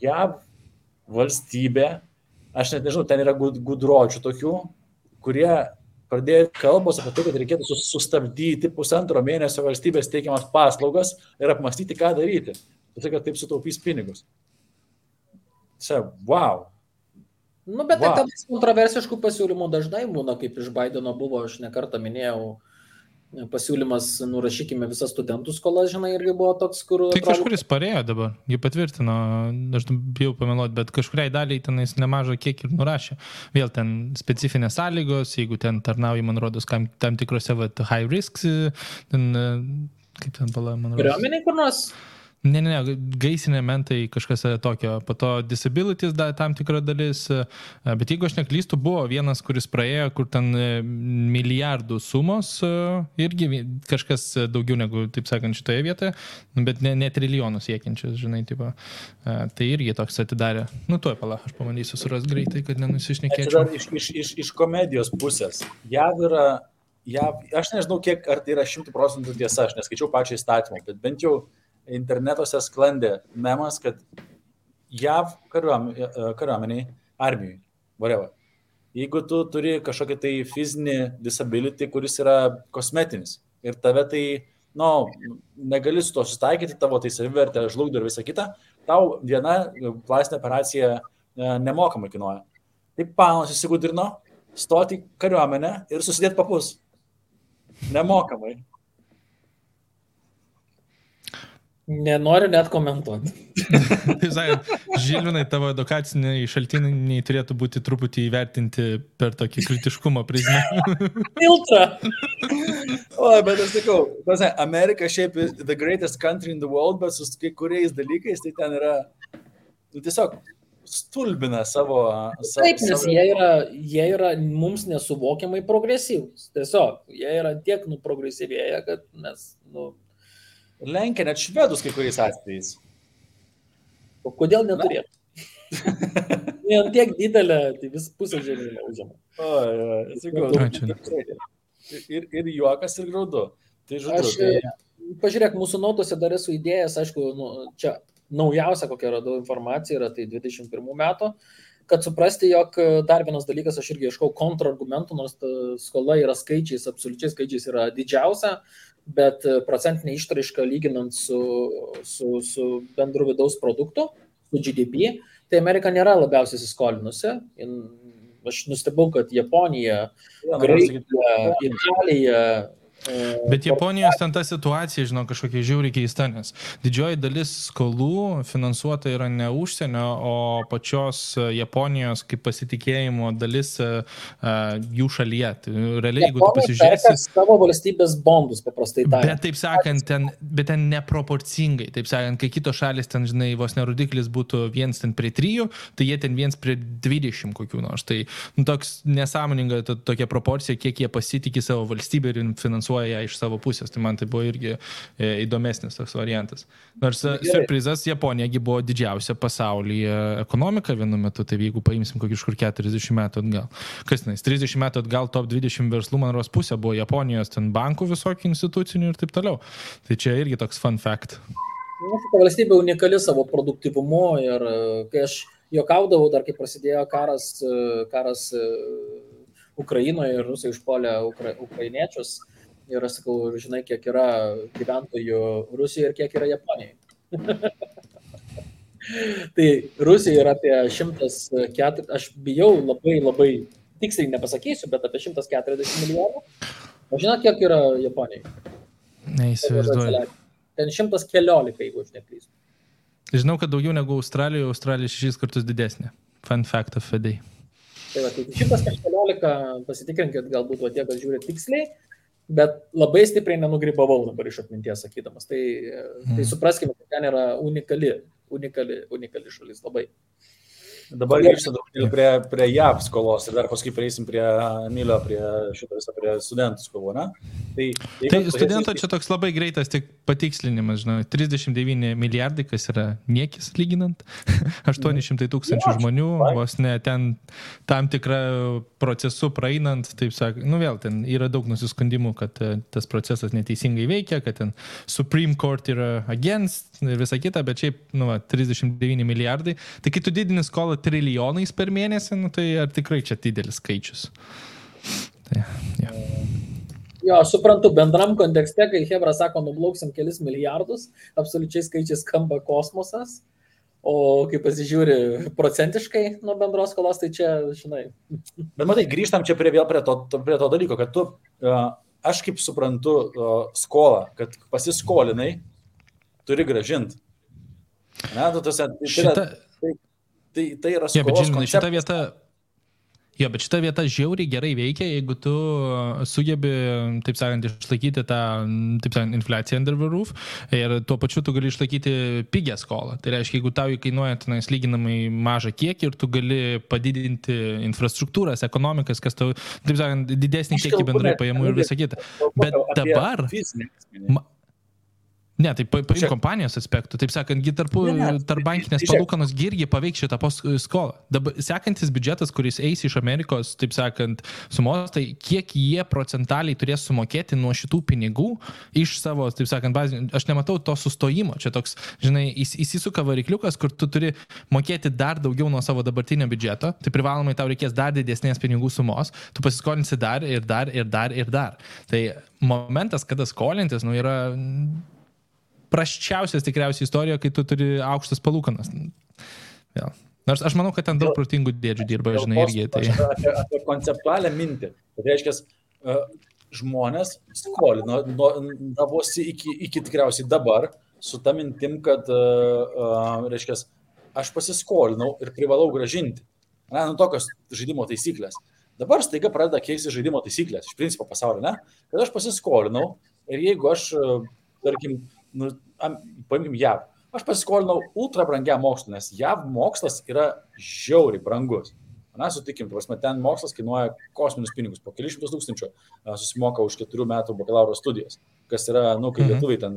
JAV valstybė, aš net nežinau, ten yra gudročių tokių, kurie pradėjo kalbos apie tai, kad reikėtų sustabdyti 1,5 mėnesio valstybės teikiamas paslaugas ir apmastyti, ką daryti. Jisai, kad taip sutaupys pinigus. Čia, wow. Nu, bet tai tada kontroversiškų pasiūlymų dažnai būna, kaip iš Bideno buvo, aš nekartą minėjau, pasiūlymas nurašykime visas studentų skolas, žinai, irgi buvo toks, kur... Tai kažkuris parėjo dabar, jį patvirtino, aš bijau pameluoti, bet kažkuriai daliai tenais nemažą kiek ir nurašė. Vėl ten specifinės sąlygos, jeigu ten tarnauji, man rodos, tam tikrose high risks, ten, kaip ten pala, man rodos. Kariuomeniai kur nors? Ne, gaisinė mentai kažkas tokio, po to disabilities tam tikra dalis, bet jeigu aš neklystu, buvo vienas, kuris praėjo, kur ten milijardų sumos, irgi kažkas daugiau negu, taip sakant, šitoje vietoje, bet ne trilijonus siekiančius, žinai, tipo, tai irgi toks atidarė. Nu, tuoj pala, aš pamandysiu suras greitai, kad nenusišnekėčiau. Iš komedijos pusės. JAV yra, aš nežinau, kiek, ar tai yra 100% tiesa, aš neskaičiau pačią įstatymą, bet bent jau internetuose sklandė memas, kad JAV kariuomeniai, armijai, whatever. Jeigu tu turi kažkokį tai fizinį disability, kuris yra kosmetinis ir tave tai, negali su to susitaikyti, tavo tai savivertė žlugdo ir visa kita, tau viena plastinė operacija nemokamai kainuoja. Taip panas įsigudrino stoti kariuomenę ir susidėti papus. Nemokamai. Nenoriu net komentuoti. Tai sakant, Žilvinai, tavo edukaciniai šaltiniai turėtų būti truputį įvertinti per tokį kritiškumo prizmę. Filtrą. O, bet aš sakau, Amerika šiaip the greatest country in the world, bet su kai kuriais dalykais tai ten yra, tiesiog stulbina savo... Taip, nes jie yra mums nesuvokiamai progresyvūs. Tiesiog, jie yra tiek progresyvėję, kad mes, Lenkia net švedus kai kuriais atvejais. O kodėl neturėtų? Vien tiek didelė, tai vis pusę žemynę užima. Ir juokas, ir graudu. Tai žodžiu. Pažiūrėk, mūsų nautose dar esu idėjas, aišku, čia naujausia, kokia radau informacija, yra tai 21 metų, kad suprasti, jog dar vienas dalykas, aš irgi ieškau kontrargumentų, nors skola yra skaičiais, absoliučiais skaičiais yra didžiausia, bet procentinė išraiška lyginant su bendru vidaus produktu, su GDP, tai Amerika nėra labiausiai įsiskolinusi. Aš nustebau, kad Japonija, Graikija, Italija... Bet Japonijos ten ta situacija, žinau, kažkokia žiauriai keista, nes didžioji dalis skolų finansuota yra ne užsienio, o pačios Japonijos kaip pasitikėjimo dalis jų šalyje. Tai realiai, jeigu tu pasižiūrėsi... savo valstybės bondus, paprastai tariant. Bet taip sakant, ten neproporcingai. Taip sakant, kai kitos šalis ten, žinai, vos nerodiklis būtų 1 prie 3, tai jie ten 1 prie 20 kokių nors. Tai toks nesąmoninga tokia proporcija, kiek jie pasitikė savo valstybę ir finansuoja ją iš savo pusės. Tai man tai buvo irgi įdomesnis toks variantas. Nors surprizas, Japonijagi buvo didžiausia pasaulyje ekonomika vienu metu, tai jeigu paimsim kokį kažkur 40 metų atgal. Kas tenais, 30 metų atgal top 20 verslų, man rodos, pusė buvo Japonijos ten bankų visokių institucinių ir taip toliau. Tai čia irgi toks fun fact. Ta valstybė unikali savo produktyvumu ir kai aš juokaudavau dar, kai prasidėjo karas Ukrainoje ir rusai užpuolė ukrainiečius. Ir aš sakau, žinai, kiek yra gyventojų Rusijoje ir kiek yra Japonijoje. Tai Rusija yra apie 104, aš bijau labai tiksliai nepasakysiu, bet apie 140 milijonų. O žinot, kiek yra Japonijoje? Neįsivaizduoju. Ten 114, jeigu aš neklystu. Žinau, kad daugiau negu Australijoje, Australija 6 kartus didesnė. Fun fact of the day. Tai va, tai 114, pasitikrinkit, galbūt va tie, kad žiūrė tiksliai, bet labai stipriai nenugribavau dabar iš atminties sakydamas. Tai supraskime, kad ten yra unikali šalis labai. Dabar grįžtam prie JAV skolos ir dar paskui prieisim prie Emilio, prie studentų skolų, ne? Tai studento čia toks labai greitas tik patikslinimas, žinau, 39 milijardai, kas yra niekis lyginant, 800 tūkstančių žmonių, vos ne ten tam tikrą procesu praeinant, taip sakant, vėl ten yra daug nusiskundimų, kad tas procesas neteisingai veikia, kad ten Supreme Court yra against ir visa kita, bet šiaip, 39 milijardai, tai kai tu didini skolą trilijonais per mėnesį, tai ar tikrai čia didelis skaičius? Tai, ja. Jo, aš suprantu, bendram kontekste, kai Hebra sako, nublauksim kelis milijardus, absoliučiai skaičiai skamba kosmosas, o kai pasižiūri procentiškai nuo bendros skolos, tai čia, žinai. Bet matai, grįžtam čia prie to dalyko, kad tu, aš kaip suprantu skolą, kad pasiskolinai, turi gražinti. Ne, tu tose, tai yra skolos konceptas. Šita vieta... Jo, bet šita vieta žiauriai gerai veikia, jeigu tu sugebi, taip sakant, išlaikyti tą, taip sakant, infliaciją under the roof ir tuo pačiu tu gali išlaikyti pigę skolą. Tai reiškia, jeigu tau įkainuoja tenais lyginamai mažą kiekį ir tu gali padidinti infrastruktūras, ekonomikas, kas tau, taip sakant, didesnį kiekį bendrai pajamų ir visą kitą. Bet dabar... Ne, tai paim kompanijos aspektų, taip sakant, tarp bankinės palūkanos irgi paveiks šitą skolą. Dabar sekantis biudžetas, kuris eis iš Amerikos, taip sakant, sumos, tai kiek jie procentaliai turės sumokėti nuo šitų pinigų iš savo, taip sakant, bazinių. Aš nematau to sustojimo. Čia toks, žinai, įsisuka varikliukas, kur tu turi mokėti dar daugiau nuo savo dabartinio biudžeto, tai privalomai tau reikės dar didesnės pinigų sumos, tu pasiskolinsi dar ir dar ir dar ir dar. Tai momentas, kada skolintis, yra prasčiausias tikriausiai istorija, kai tu turi aukštas palūkanas. Ja. Nors aš manau, kad ten daug protingų dėdžių dirba, žinai, irgi. Tai... Apie konceptualią mintį. Tai reiškia, žmonės skolino davosi iki tikriausiai dabar su ta mintim, kad, reiškia, aš pasiskolinau ir privalau gražinti. Tokios žaidimo taisyklės. Dabar staiga pradeda keisti žaidimo taisyklės, iš principo pasaulio, ne? Kad aš pasiskolinau ir jeigu aš, tarkim, paimkim JAV. Aš pasiskolinau ultra brangiam mokslui, nes JAV mokslas yra žiauriai brangus. Sutikim, ten mokslas kainuoja kosminius pinigus, po kelius šimtus tūkstančių susimoka už 4 metų bakalauro studijas, kas yra, kai lietuviai ten,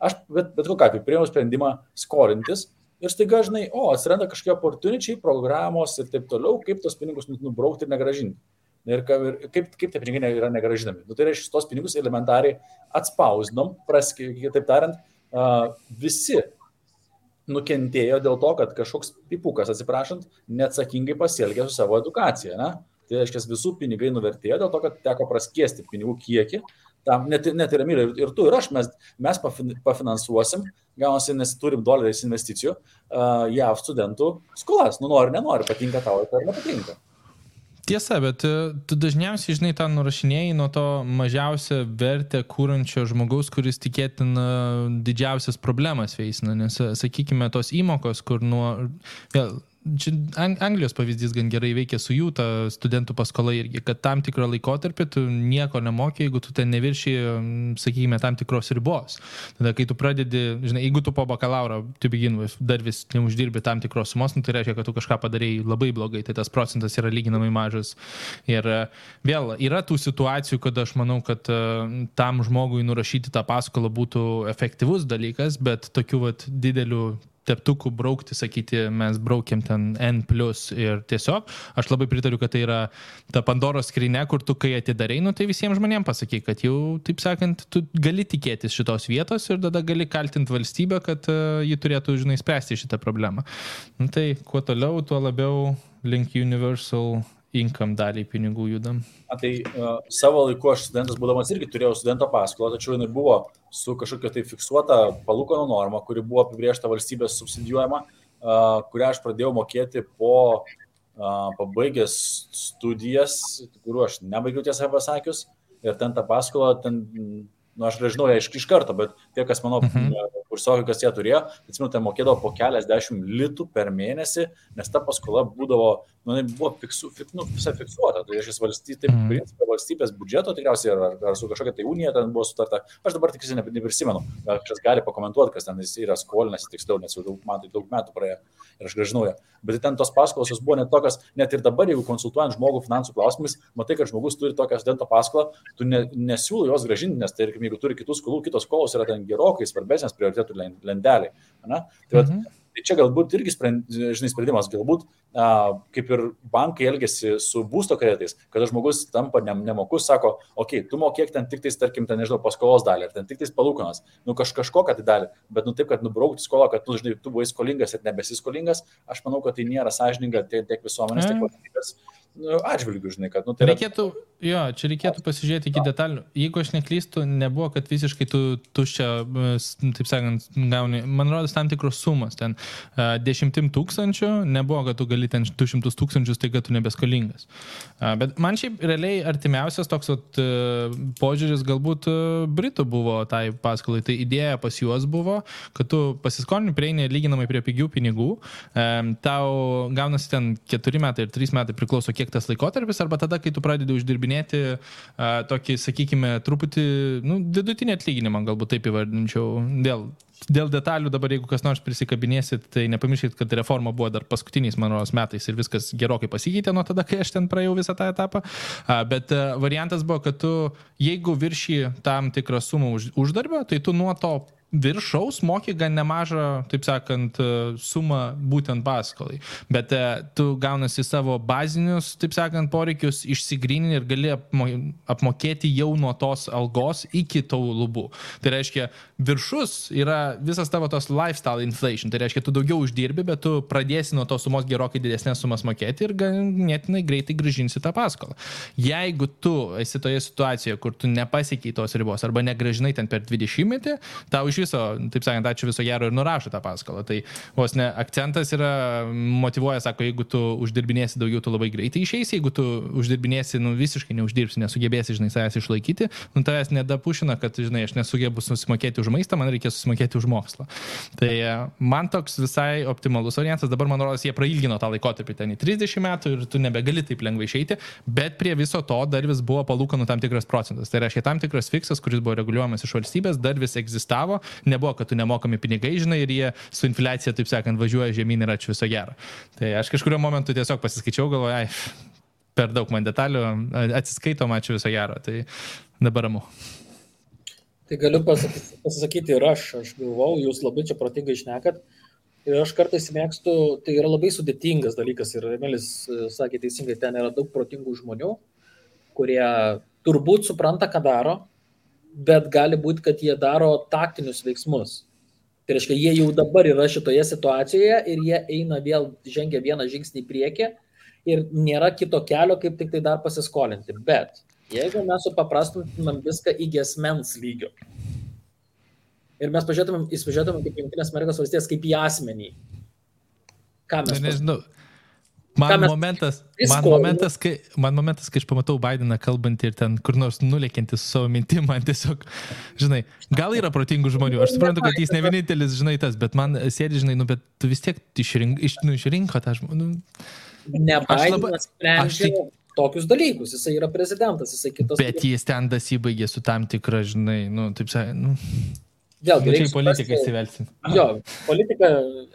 aš bet kokiu atveju priėmiau sprendimą skolintis ir staiga, žinai, atsiranda kažkokie opportunity, programos ir taip toliau, kaip tos pinigus nubraukti ir negražinti. Ir kaip tie pinigai yra negražinami. Tai reiškia, tos pinigus elementariai atspausdinom, taip tariant, visi nukentėjo dėl to, kad kažkoks pipukas, atsiprašant, neatsakingai pasielgė su savo edukacija. Ne? Tai reiškia, visų pinigai nuvertėjo dėl to, kad teko praskiesti pinigų kiekį. Tam net ir Emilė, ir tu, ir aš, mes pafinansuosim, gaunasi, nes turim doleriais investicijų, JAV studentų skolas. Nori, nenori, patinka tau, ar nepatinka. Tiesa, bet tu dažniausiai, žinai, tą nurašinėjai nuo to mažiausią vertę kūrančio žmogaus, kuris tikėtina didžiausias problemas veisina, nes, sakykime, tos įmokos, kur čia Anglijos pavyzdys gan gerai veikia su jų, ta studentų paskola irgi, kad tam tikrą laikotarpį tu nieko nemokė, jeigu tu ten nevirši, sakykime, tam tikros ribos. Tada, kai tu pradedi, žinai, jeigu tu po bakalauro, to begin with, dar vis neuždirbi tam tikros sumos, tai reiškia, kad tu kažką padarėjai labai blogai, tai tas procentas yra lyginamai mažas. Ir vėl, yra tų situacijų, kad aš manau, kad tam žmogui nurašyti tą paskolą būtų efektyvus dalykas, bet tokių didelių teptukų braukti, sakyti, mes braukiam ten N+, ir tiesiog, aš labai pritariu, kad tai yra ta Pandoros skrynia, kur tu kai atidarai, tai visiems žmonėms pasakai, kad jau, taip sakant, tu gali tikėtis šitos vietos ir tada gali kaltinti valstybę, kad ji turėtų, žinai, spręsti šitą problemą. Tai kuo toliau, tuo labiau link universal income daliai pinigų judam. Tai savo laiku aš studentas būdamas irgi turėjau studento paskolą, tačiau jinai buvo su kažkokia tai fiksuota palūkanų norma, kuri buvo apibrėžta valstybės subsidijuojama, kurią aš pradėjau mokėti po pabaigęs studijas, kuriuo aš nebaigiau tiesą pasakius, ir ten tą paskolą, aš nežinau ją iš karto, bet tie, kas mano kursiokai, kas ją turėjo, atsimenu, tai mokėdavo po keliasdešimt litų per mėnesį, nes ta paskola būdavo, buvo visai fiksuota. Tai valstybės biudžeto tikriausiai ar su kažkokia tai unija ten buvo sutarta. Aš dabar tikrai neprisimenu, kažkas gali pakomentuoti, kas ten yra skolinasi tiksliau, nes jau man tai daug metų praėjo ir aš grąžinau ją. Bet ten tos paskolos buvo net tokios, net ir dabar, jeigu konsultuojant žmogų finansų klausimais, matai, kad žmogus turi tokią studento paskolą, tu nesiūlo jos grąžinti, nes tai, jeigu turi kitų skolų, kitos skolos yra ten gerokai svarbesnės prioritetų lenteliai. Tai čia galbūt irgi sprendimas, galbūt kaip ir bankai elgiasi su būsto kreditais, kada žmogus tampa nemokus, sako, tu mokėk ten tik tais, tarkim, ten, nežinau, paskolos dalį, ar ten tik tais palūkanas, kažkokią tai dalį, bet taip, kad nubraukti skolą, kad tu buvai skolingas ir nebesiskolingas, aš manau, kad tai nėra sąžininga tiek visuomenės, tiek valstybės atžvilgių, žinai, kad, tai reikėtų pasižiūrėti iki detalių. Jeigu aš neklystu, nebuvo, kad visiškai tu tuščia, taip sakant, gauni, man rodos, tam tikros sumos, ten 10 000, nebuvo, kad tu gali ten 200 000, tai kad tu nebeskolingas. Bet man šiaip realiai artimiausias toks požiūris galbūt Britų buvo tai paskolai, tai idėja pas juos buvo, kad tu pasiskolini, prieini lyginamai prie pigių pinigų, tau gaunasi ten 4 metai ir 3 metai priklauso kiek tas laikotarpis, arba tada, kai tu pradedi uždirbinėti tokį, sakykime, truputį, vidutinį atlyginimą, galbūt taip įvardinčiau, dėl detalių dabar, jeigu kas nors prisikabinėsit, tai nepamirškit, kad reforma buvo dar paskutiniais, man rodos, metais ir viskas gerokai pasikeitė nuo tada, kai aš ten praėjau visą tą etapą, bet variantas buvo, kad tu, jeigu viršį tam tikrą sumą uždarbio, tai tu nuo to viršaus moki gan nemažą, taip sakant, sumą būtent paskolai. Bet tu gaunasi savo bazinius, taip sakant, poreikius išsigryninti ir gali apmokėti jau nuo tos algos iki tų lubų. Tai reiškia, viršus yra visas tavo tos lifestyle inflation. Tai reiškia, tu daugiau uždirbi, bet tu pradėsi nuo tos sumos gerokai didesnės sumas mokėti ir ganėtinai greitai grąžinsi tą paskolą. Jeigu tu esi toje situacijoje, kur tu nepasiekiai tos ribos arba negrąžinai ten per 20 metį, tau iš viso, taip sakant, ačiū viso gero ir nurašo tą paskolą. Tai vos ne akcentas yra, motyvuoja, sako, jeigu tu uždirbinėsi daugiau, tu labai greitai išeisi, jeigu tu uždirbinėsi, visiškai neuždirbsi, nesugebėsi, žinai, savęs išlaikyti, tavęs nedapušina, kad, žinai, aš nesugebu susimokėti už maistą, man reikės susimokėti už mokslą. Tai man toks visai optimalus variantas, dabar man rodos, jie prailgino tą laikotarpį ten į 30 metų ir tu nebegali taip lengvai išeiti, bet prie viso to dar vis buvo palūkanų tam tikras procentas. Tai reiškia, tam tikras fiksas, kuris buvo reguliuojamas iš valstybės, dar vis egzistavo, nebuvo, kad tu nemokami pinigai, žinai, ir jie su infliacija, taip sakant, važiuoja žemyn ir ačiū viso gero. Tai aš kažkurio momentu tiesiog pasiskaičiau, galvoju, per daug man detalių, atsiskaitom, ačiū viso gero. Tai dabar ramu. Tai galiu pasakyti ir aš galvau, jūs labai čia protingai šnekat. Ir aš kartais mėgstu, tai yra labai sudėtingas dalykas ir Emilis sakė teisingai, ten yra daug protingų žmonių, kurie turbūt supranta, ką daro, bet gali būti, kad jie daro taktinius veiksmus. Tai reiškia, jie jau dabar yra šitoje situacijoje ir jie eina vėl, žengia vieną žingsnį į priekį ir nėra kito kelio, kaip tik tai dar pasiskolinti. Bet jeigu mes supaprastintumėm viską iki asmens lygio ir mes pažiūrėtumėm kaip Jungtinės Amerikos valstijas, kaip į asmenį, ką mes nežinau. Man momentas, kai aš pamatau Bideną kalbantį ir ten kur nors nulėkiantį su savo mintim, man tiesiog, žinai, gal yra protingų žmonių, aš suprantu, kad jis ne vienintelis, žinai, tas, bet man sėdi, žinai, bet tu vis tiek išrinko tą žmonių. Ne Bidenas sprendžia tokius dalykus, jisai yra prezidentas, jisai kitas. Bet jis ten dasibaigė su tam tikra, žinai, taip sakant, Vėlgi, čia į politiką įsivelsim. Jo, politika,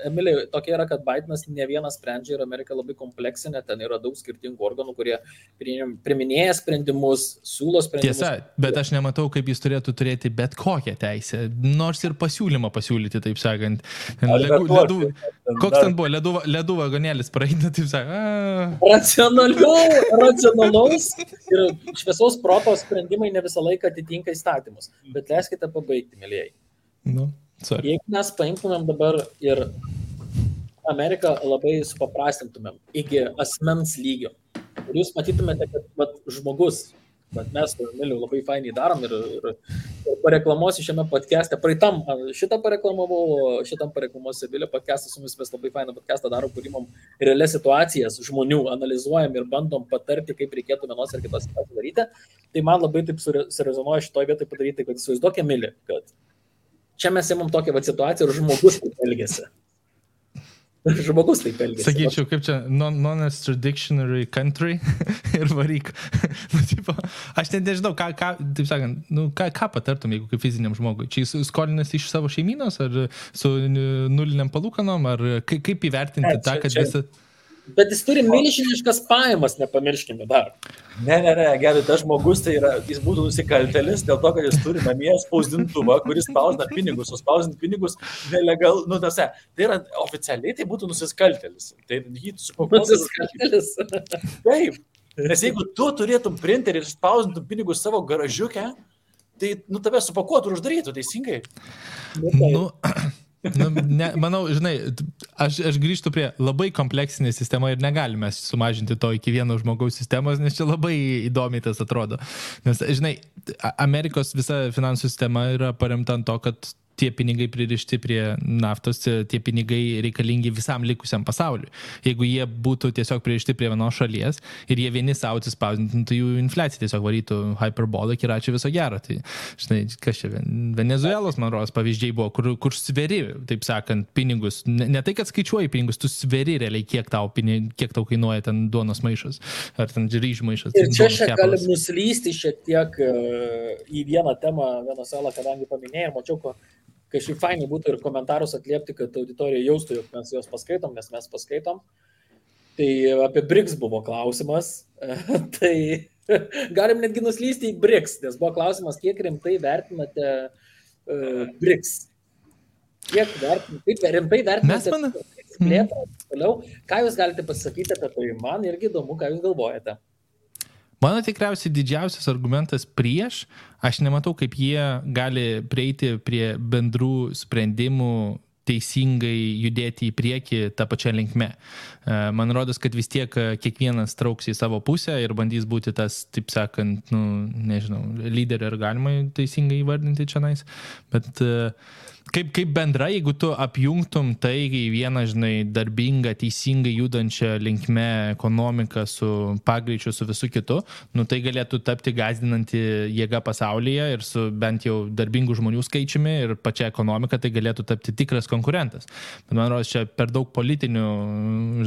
Emilė, tokia yra, kad Bidenas ne vienas sprendžia ir Amerika labai kompleksinė, ten yra daug skirtingų organų, kurie priiminėja sprendimus, siūlo sprendimus. Tiesa, bet aš nematau, kaip jis turėtų turėti bet kokią teisę, nors ir pasiūlymą pasiūlyti, taip sakant. Koks ten buvo, ledų vagonėlis praeina, taip sakant. Racionalaus ir šviesaus proto sprendimai ne visą laiką atitinka įstatymus, bet leiskite pabaigti, mėlyjei. Jeigu mes paimtumėm dabar ir Ameriką labai supaprastintumėm iki asmens lygio ir jūs matytumėte, kad žmogus, bet mes su Emiliu labai fainiai darom ir pareklamuosiu šiame podcast'e, šitam pareklamuosiu Emilio podcast'ą, su mumis mes labai fainą podcast'ą darom, kur imam realias situacijas žmonių, analizuojam ir bandom patarti, kaip reikėtų vienos ir kitos situacijos daryti. Tai man labai taip surezonuoja šitoje vietoje padaryti, kad įsivaizduok, Emili, kad čia mes imam tokią situaciją ir žmogus taip elgiasi. Sakyčiau, kaip čia, non-extraditionary country ir varyk. Aš nežinau, taip sakant, ką patartum, jeigu kaip fiziniam žmogui? Čia jis skolinasi iš savo šeimynos, ar su nuliniam palūkanom, ar kaip įvertinti tą, kad visą... Bet jis turi milžiniškas pajamas, nepamirškime dar. Ne, gerai, tas žmogus tai yra, jis būtų nusikaltelis dėl to, kad jis turi namie spausdintuvą, kuris spausdina pinigus, o spausdinti pinigus nelegal, tai yra oficialiai, tai būtų nusikaltelis. Tai jį supakuotų. Nusikaltelis. Taip, nes jeigu tu turėtum printerį ir spausdintum pinigus savo garažiukę, tai tave supakuotų ir uždarytų, teisingai? manau, žinai, aš grįžtu prie labai kompleksinė sistema ir negalime sumažinti to iki vieno žmogaus sistemos, nes čia labai įdomiai tas atrodo. Nes, žinai, Amerikos visa finansų sistema yra paremta ant to, kad tie pinigai pririšti prie naftos, tie pinigai reikalingi visam likusiam pasauliu. Jeigu jie būtų tiesiog pririšti prie vienos šalies ir jie vieni savo atsispausdintų, tai jų infliacija tiesiog varytų hyperbolic ir ačiū viso gero. Tai, žinai, kas čia, Venezuelos, man rodos, pavyzdžiai buvo, kur sveri, taip sakant, pinigus. Ne tai, kad skaičiuoji pinigus, tu sveri realiai, kiek tau kainuoja ten duonos maišas ar ten ryžių maišas. Ir čia galim nuslysti šiek tiek į vieną temą Venezuelą, kadangi paminėjau, mačiau, kažkaip fainai būtų ir komentarus atliepti, kad auditorija jaustų, jog mes juos paskaitom, nes mes paskaitom. Tai apie BRICS buvo klausimas. Tai galim netgi nuslysti į BRICS, nes buvo klausimas, kiek rimtai vertinate BRICS. Kaip rimtai vertinate plėtrą toliau. Ką jūs galite pasakyti apie tai? Man irgi įdomu, ką jūs galvojate. Mano tikriausiai didžiausias argumentas prieš, aš nematau, kaip jie gali prieiti prie bendrų sprendimų teisingai judėti į priekį tą pačią linkme. Man rodos, kad vis tiek kiekvienas trauks į savo pusę ir bandys būti tas, taip sakant, nežinau, lyderį ar galima teisingai įvardinti čia nais, bet kaip bendra, jeigu tu apjungtum tai į vieną, žinai, darbingą, teisingai judančią linkme ekonomiką su pagreičiu, su visu kitu, tai galėtų tapti gąsdinanti jėga pasaulyje ir su bent jau darbingų žmonių skaičiumi ir pačia ekonomika tai galėtų tapti tikras konkurentas. Bet man rodos, čia per daug politinių,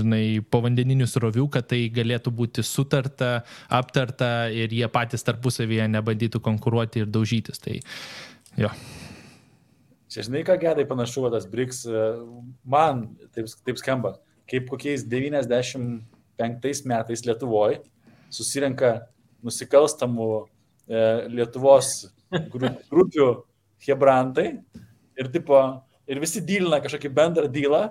žinai, povandeninių srovių, kad tai galėtų būti sutarta, aptarta ir jie patys tarpusavyje nebandytų konkuruoti ir daužytis. Tai jo. Čia žinai, ką gedai panašu, tas BRICS, man taip skamba, kaip kokiais 95 metais Lietuvoje susirenka nusikalstamų Lietuvos grupių hebrantai ir visi dylina kažkokį bendrą dylą,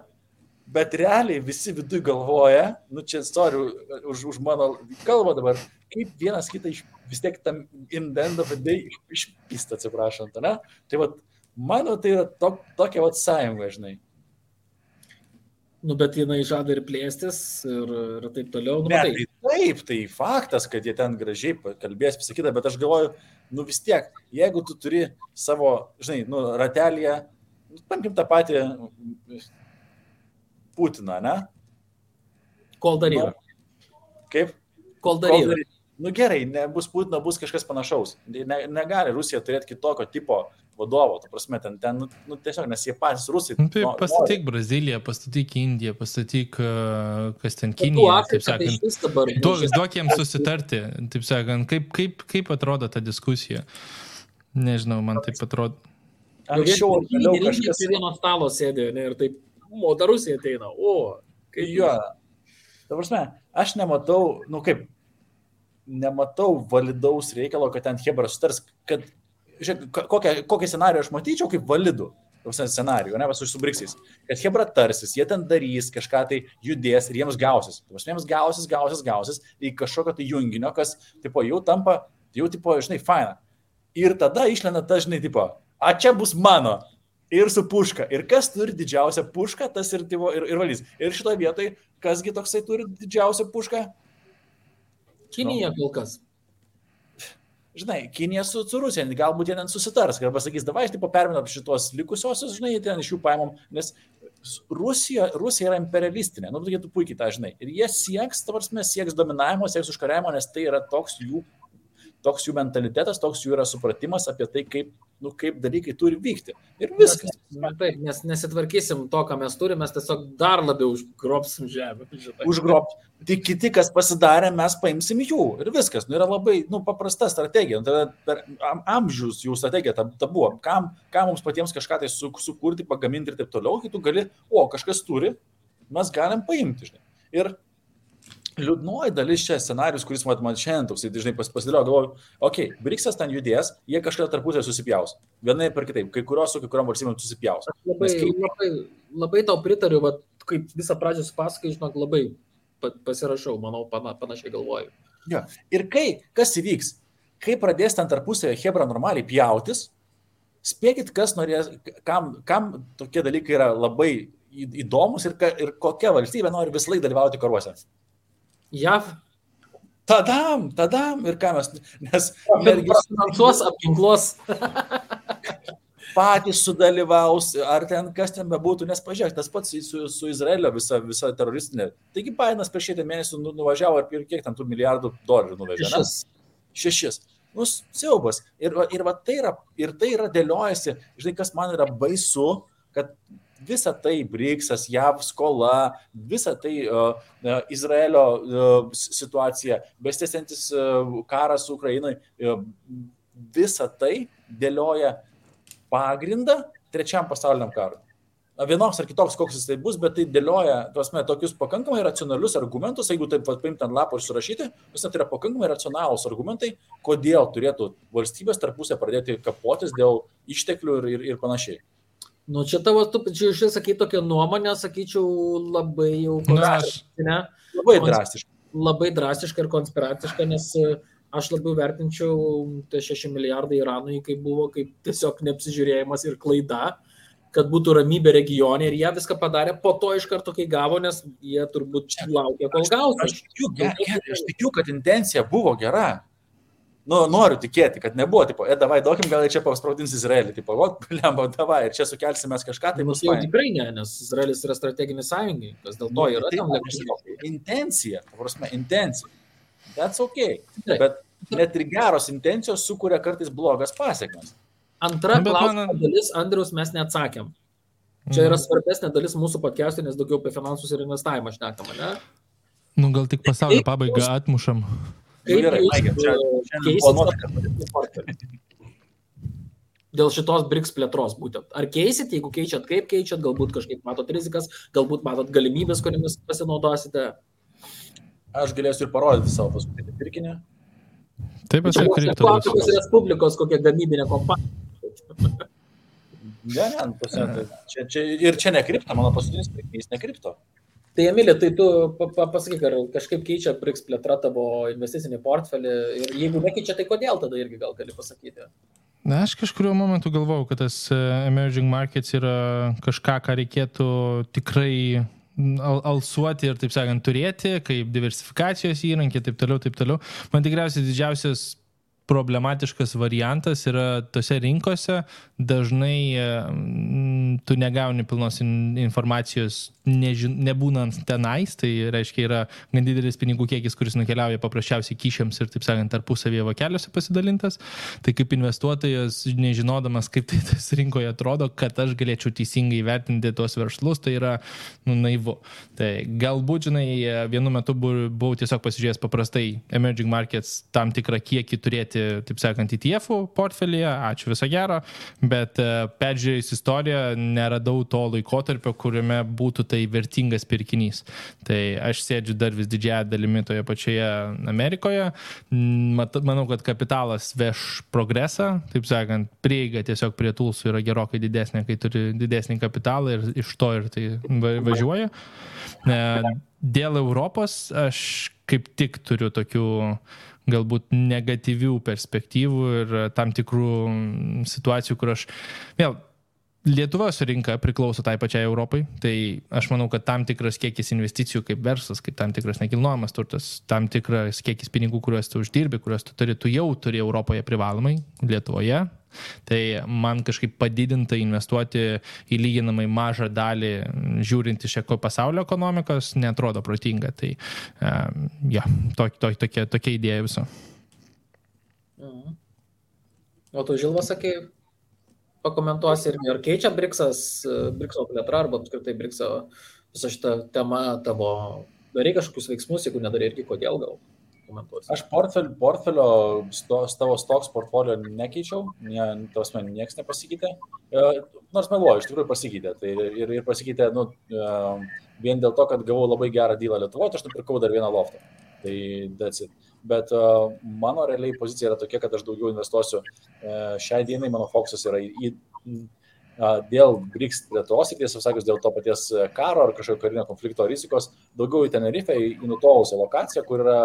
bet realiai visi viduj galvoja, čia sorry už mano kalbą dabar, kaip vienas kitą vis tiek tam in the end of the day išpista, atsiprašant, ne? Tai mano tai yra tokia sąjunga, žinai. Bet jinai žada ir plėstis ir taip toliau. Tai faktas, kad jie ten gražiai kalbės, pasakyta, bet aš galvoju, vis tiek, jeigu tu turi savo, žinai, ratelėje, paimkim tą patį Putiną, ne? Kol dar yra. Kaip? Kol dar yra. Gerai, nebus Putino, bus kažkas panašaus. Negali Rusija turėti kitokio tipo vadovo, ta prasme, ten tiesiog, nes jie patys rusai. Pastatyk Braziliją, pastatyk Indiją, pastatyk, kas ten Kinija, taip sakant. Duok jiems susitarti, taip sakant, kaip atrodo ta diskusija. Nežinau, man taip atrodo. Anksčiau, vėliau kažkas prie vieno stalo sėdė, ir taip, ta Rusija ateina, kaip jo. Ta prasme, aš nematau, nematau validaus reikalo, kad ten Hebra sutars, kad, žiūrėk, kokią scenariją aš matyčiau kaip validų scenarijų, ne, su BRICS, kad Hebra tarsis, jie ten darys, kažką tai judės ir jiems gausis. Jiems gausis į kažkokio tai junginio, kas, jau tampa, žinai, faina. Ir tada išlenda ta, žinai, čia bus mano. Ir su puška. Ir kas turi didžiausią pušką, tas ir valys. Ir šitoje vietoje, kasgi toksai turi didžiausią pušką? Kinija kol kas. Žinai, Kinija su Rusija, galbūt jie ten susitars, arba sakys, davai, perminam šitos likusiosios, žinai, ten iš jų paimam, nes Rusija yra imperialistinė, tu puikiai tą žinai. Ir jie sieks dominavimo, sieks užkariavimo, nes tai yra toks jų mentalitetas, toks jų yra supratimas apie tai, kaip dalykai turi vykti. Ir viskas. Taip, nes nesitvarkysim to, ką mes turime, mes tiesiog dar labiau užgrobsim žemę. Tik kiti, kas pasidarė, mes paimsim jų. Ir viskas. Yra labai paprasta strategija. Per amžius jų strategija ta buvo. Kam mums patiems kažką tai sukurti, pagaminti ir taip toliau, kai tu gali, kažkas turi, mes galim paimti. Žinai. Ir liūdnoji dalis čia scenarius, kuris man šiandien toks, dažnai pasidėlioju, galvoju, BRICS ten judės, jie kažką tarpusai susipjaus. Vienai per kitaip, kai kurios su kai kuriom valstybėm susipjaus. Labai tau pritariu, kaip visą pradžią supasakai, žinok, labai pasirašau, manau, panašiai galvoju. Jo. Ir kas įvyks, kai pradės ten tarpusai Hebra normaliai pjautis, Spėkit, kas norės, kam tokie dalykai yra labai įdomus ir kokia valstybė nori visą laiką dalyvauti karuose. JAV. Tadam, ir ką mes, nes finansuos, apginkluos. Patys sudalyvaus, ar ten kas ten bebūtų, nes pažiūrėk, tas pats su Izraelio visa teroristinė. Taigi Bidenas prieš 6 mėnesių nuvažiavo ir kiek ten tų $1 milijardų nuvežė? 6. Nu, siaubas. Ir tai yra dėliojasi, žinai, kas man yra baisu, kad visa tai BRICS, JAV skola, visa tai Izraelio situacija, besitęsiantis karas Ukrainai, visa tai dėlioja pagrindą trečiam pasauliniam karui. Vienoks ar kitoks, koks jis tai bus, bet tai dėlioja tokius pakankamai racionalius argumentus, jeigu taip paimti ant lapo ir surašyti, tai yra pakankamai racionalūs argumentai, kodėl turėtų valstybės tarpusę pradėti kapotis dėl išteklių ir panašiai. Nu, čia tavo, tu sakai tokią nuomonę, sakyčiau, labai jau konspiracinę. Labai drastiška ir konspiraciška, nes aš labiau vertinčiau tie 6 milijardai Iranui, kaip buvo kaip tiesiog neapsižiūrėjimas ir klaida, kad būtų ramybė regione ir jie viską padarė po to iš karto, kai gavo, nes jie turbūt laukia, kol gaus. Aš tikiu, kad intencija buvo gera. Nu, noriu tikėti, kad nebuvo, tipo, davai, duokim, gal čia paspraudins Izraelį, tipo, lemba, davai, ir čia sukelsim mes kažką, tai bus jau tikrai ne, nes Izraelis yra strateginis sąjungininkas, dėl to yra tam lėkščiai. Intencija, intencija. That's okay. Bet net ir geros intencijos sukuria kartais blogas pasiekmes. Antra klausimo dalis, Andriaus, mes neatsakėm. Čia yra svarbesnė dalis mūsų podcast'o, nes daugiau apie finansus ir investavimą šnekama, ne? Nu, gal tik pasaulio pabaigą atmušam. Kaip dėl šitos BRICS plėtros būtent. Ar keisit, jeigu keičiat, kaip keičiat, galbūt kažkaip matot rizikas, galbūt matot galimybės, kuriamis pasinaudosite? Aš galėsiu ir parodyti savo paskutinį pirkinį. Taip, aš kriptovaliutos. Afrikos Respublikos kokia gamybinė kompanija. Čia ne kripto, mano paskutinis pirkinys ne kripto. Tai Emilija, tai tu pasakyk, ar kažkaip keičia BRICS plėtra tavo investicinį portfelį ir jeigu nekeičia, tai kodėl tada irgi gal gali pasakyti? Na, aš kažkuriuo momentu galvojau, kad tas emerging markets yra kažką, ką reikėtų tikrai alsuoti ir, taip sakant, turėti, kaip diversifikacijos įrankį, taip toliau. Man tikriausiai didžiausias problematiškas variantas yra tose rinkose, dažnai tu negauni pilnos informacijos nebūnant tenais, tai reiškia yra gan didelis pinigų kiekis, kuris nukeliauja paprasčiausiai kyšiams ir, taip sakant, tarpusavėje vokeliuose pasidalintas. Tai kaip investuotojas, nežinodamas, kaip tai tas rinkoje atrodo, kad aš galėčiau teisingai vertinti tuos verslus, tai yra naivu. Tai galbūt, žinai, vienu metu buvau tiesiog pasižiūrėjęs paprastai emerging markets tam tikrą kiekį turėti, taip sakant, ETF-ų portfelyje, ačiū viso gero, bet peržiūrėjus istoriją neradau to laikotarpio, kuriame būtų tai vertingas pirkinys. Tai aš sėdžiu dar vis didžiąją dalimi toje pačioje Amerikoje. Manau, kad kapitalas veš progresą, taip sakant, prieiga tiesiog prie tulsų yra gerokai didesnė, kai turi didesnį kapitalą ir iš to ir tai važiuoja. Dėl Europos aš kaip tik turiu tokių galbūt negatyvių perspektyvų ir tam tikrų situacijų, kur aš vėl Lietuvos rinka priklauso tai pačiai Europai, tai aš manau, kad tam tikras kiekis investicijų kaip verslas, kaip tam tikras nekilnojamas turtas, tam tikras kiekis pinigų, kuriuos tu uždirbi, kuriuos tu jau turi Europoje privalomai, Lietuvoje. Tai man kažkaip padidinta investuoti į lyginamai mažą dalį, žiūrint iš pasaulio ekonomikos, neatrodo protinga. Tai tokia idėja viso. O tu, Žilva, sakai, pakomentuosi irgi, ar keičia BRICS-o plėtra, arba apskritai BRICS-o visą šitą temą tavo, darai kažkokius veiksmus, jeigu nedarai irgi, kodėl gal komentuosi? Aš portfelio, tavo stocks portfolio nekeičiau, nieks nepasikeitė, nors meluoju, iš tikrųjų pasikeitė. Tai ir pasikeitė vien dėl to, kad gavau labai gerą dealą Lietuvoje, aš nupirkau dar vieną loftą. Tai that's it. Bet mano realiai pozicija yra tokia, kad aš daugiau investuosiu. Šiai dienai mano fokusas yra dėl BRICS plėtros, ir tiesą sakant, dėl to paties karo ar kažkokio karinio konflikto rizikos, daugiau į Tenerifę, į nutolusią lokaciją, kur yra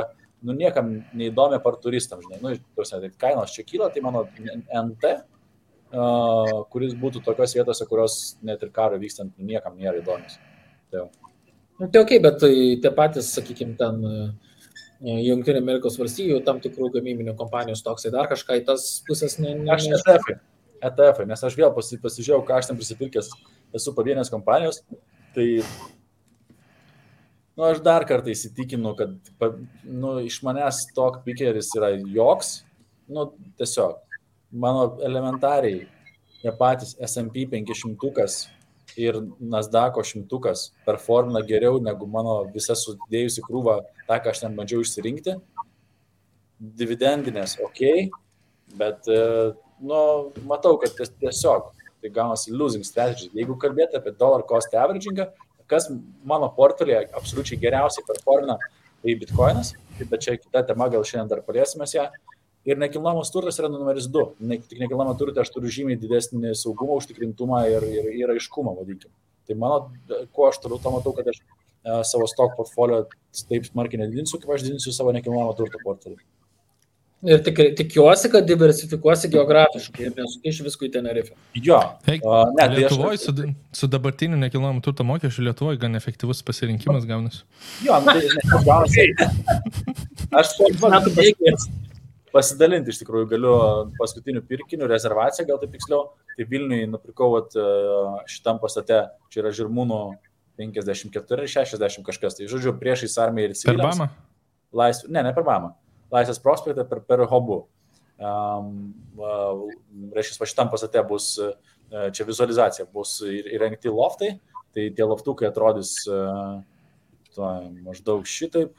niekam neįdomi par turistams. Žinai. Tai kainos čia kyla, tai mano NT kuris būtų tokios vietose, kurios net ir karo vykstant niekam nėra įdomios. Tai Tai ok, bet tai tie patys, sakykime, ten Jungtinių Amerikos valstijų, tam tikrų gamybinių kompanijų stoksai, dar kažką į tas pusės Aš ETF, nes aš vėl pasižiūrėjau, ką aš ten prisipirkęs esu pavienės kompanijos, tai aš dar kartą įsitikinu, kad iš manęs stock pickeris yra joks, tiesiog, mano elementariai, jie patys S&P 500 ir Nasdaq'o 100 performina geriau negu mano visa sudėjusi krūva, tą, ką aš ten bandžiau išsirinkti. Dividendinės, ok, bet, matau, kad tiesiog tai gaunasi losing strategy. Jeigu kalbėti apie dollar cost averagingą, kas mano portfelėje absoliučiai geriausiai performina, tai Bitcoinas, bet čia kita tema, gal šiandien dar paliesimės ją. Ir nekilnojamas turtas yra numeris 2. Tik nekilnojamą turtą aš turiu žymiai didesnį saugumą, užtikrintumą ir aiškumą, vadinkim. Tai ko aš turiu, to matau, kad aš savo stock portfolio taip smarkiai nedidinsiu, kaip aš didinsiu savo nekilnojamą turto portfelį. Ir tikiuosi, kad diversifikuosi geografiškai ir nesukeiši visko į Tenerifę. Jo. Lietuvoje su dabartiniu nekilnojamą turto mokesčiu Lietuvoje gan efektyvus pasirinkimas gaunasi. Jo, tai gaunasi. Aš pasidalinti iš tikrųjų galiu paskutinių pirkinių rezervaciją, gal taip tiksliau. Tai Vilniui nupirkau šitam pastate, čia yra Žirmūnų 54 ir 60 kažkas. Tai žodžiu, priešais armiją ir civiliams. Per Bamą? Ne per Bamą. Laisvės prospektą per Hobu. Reiškia, šitam pastate bus, čia vizualizacija, bus įrengti loftai. Tai tie loftukai atrodys maždaug šitaip.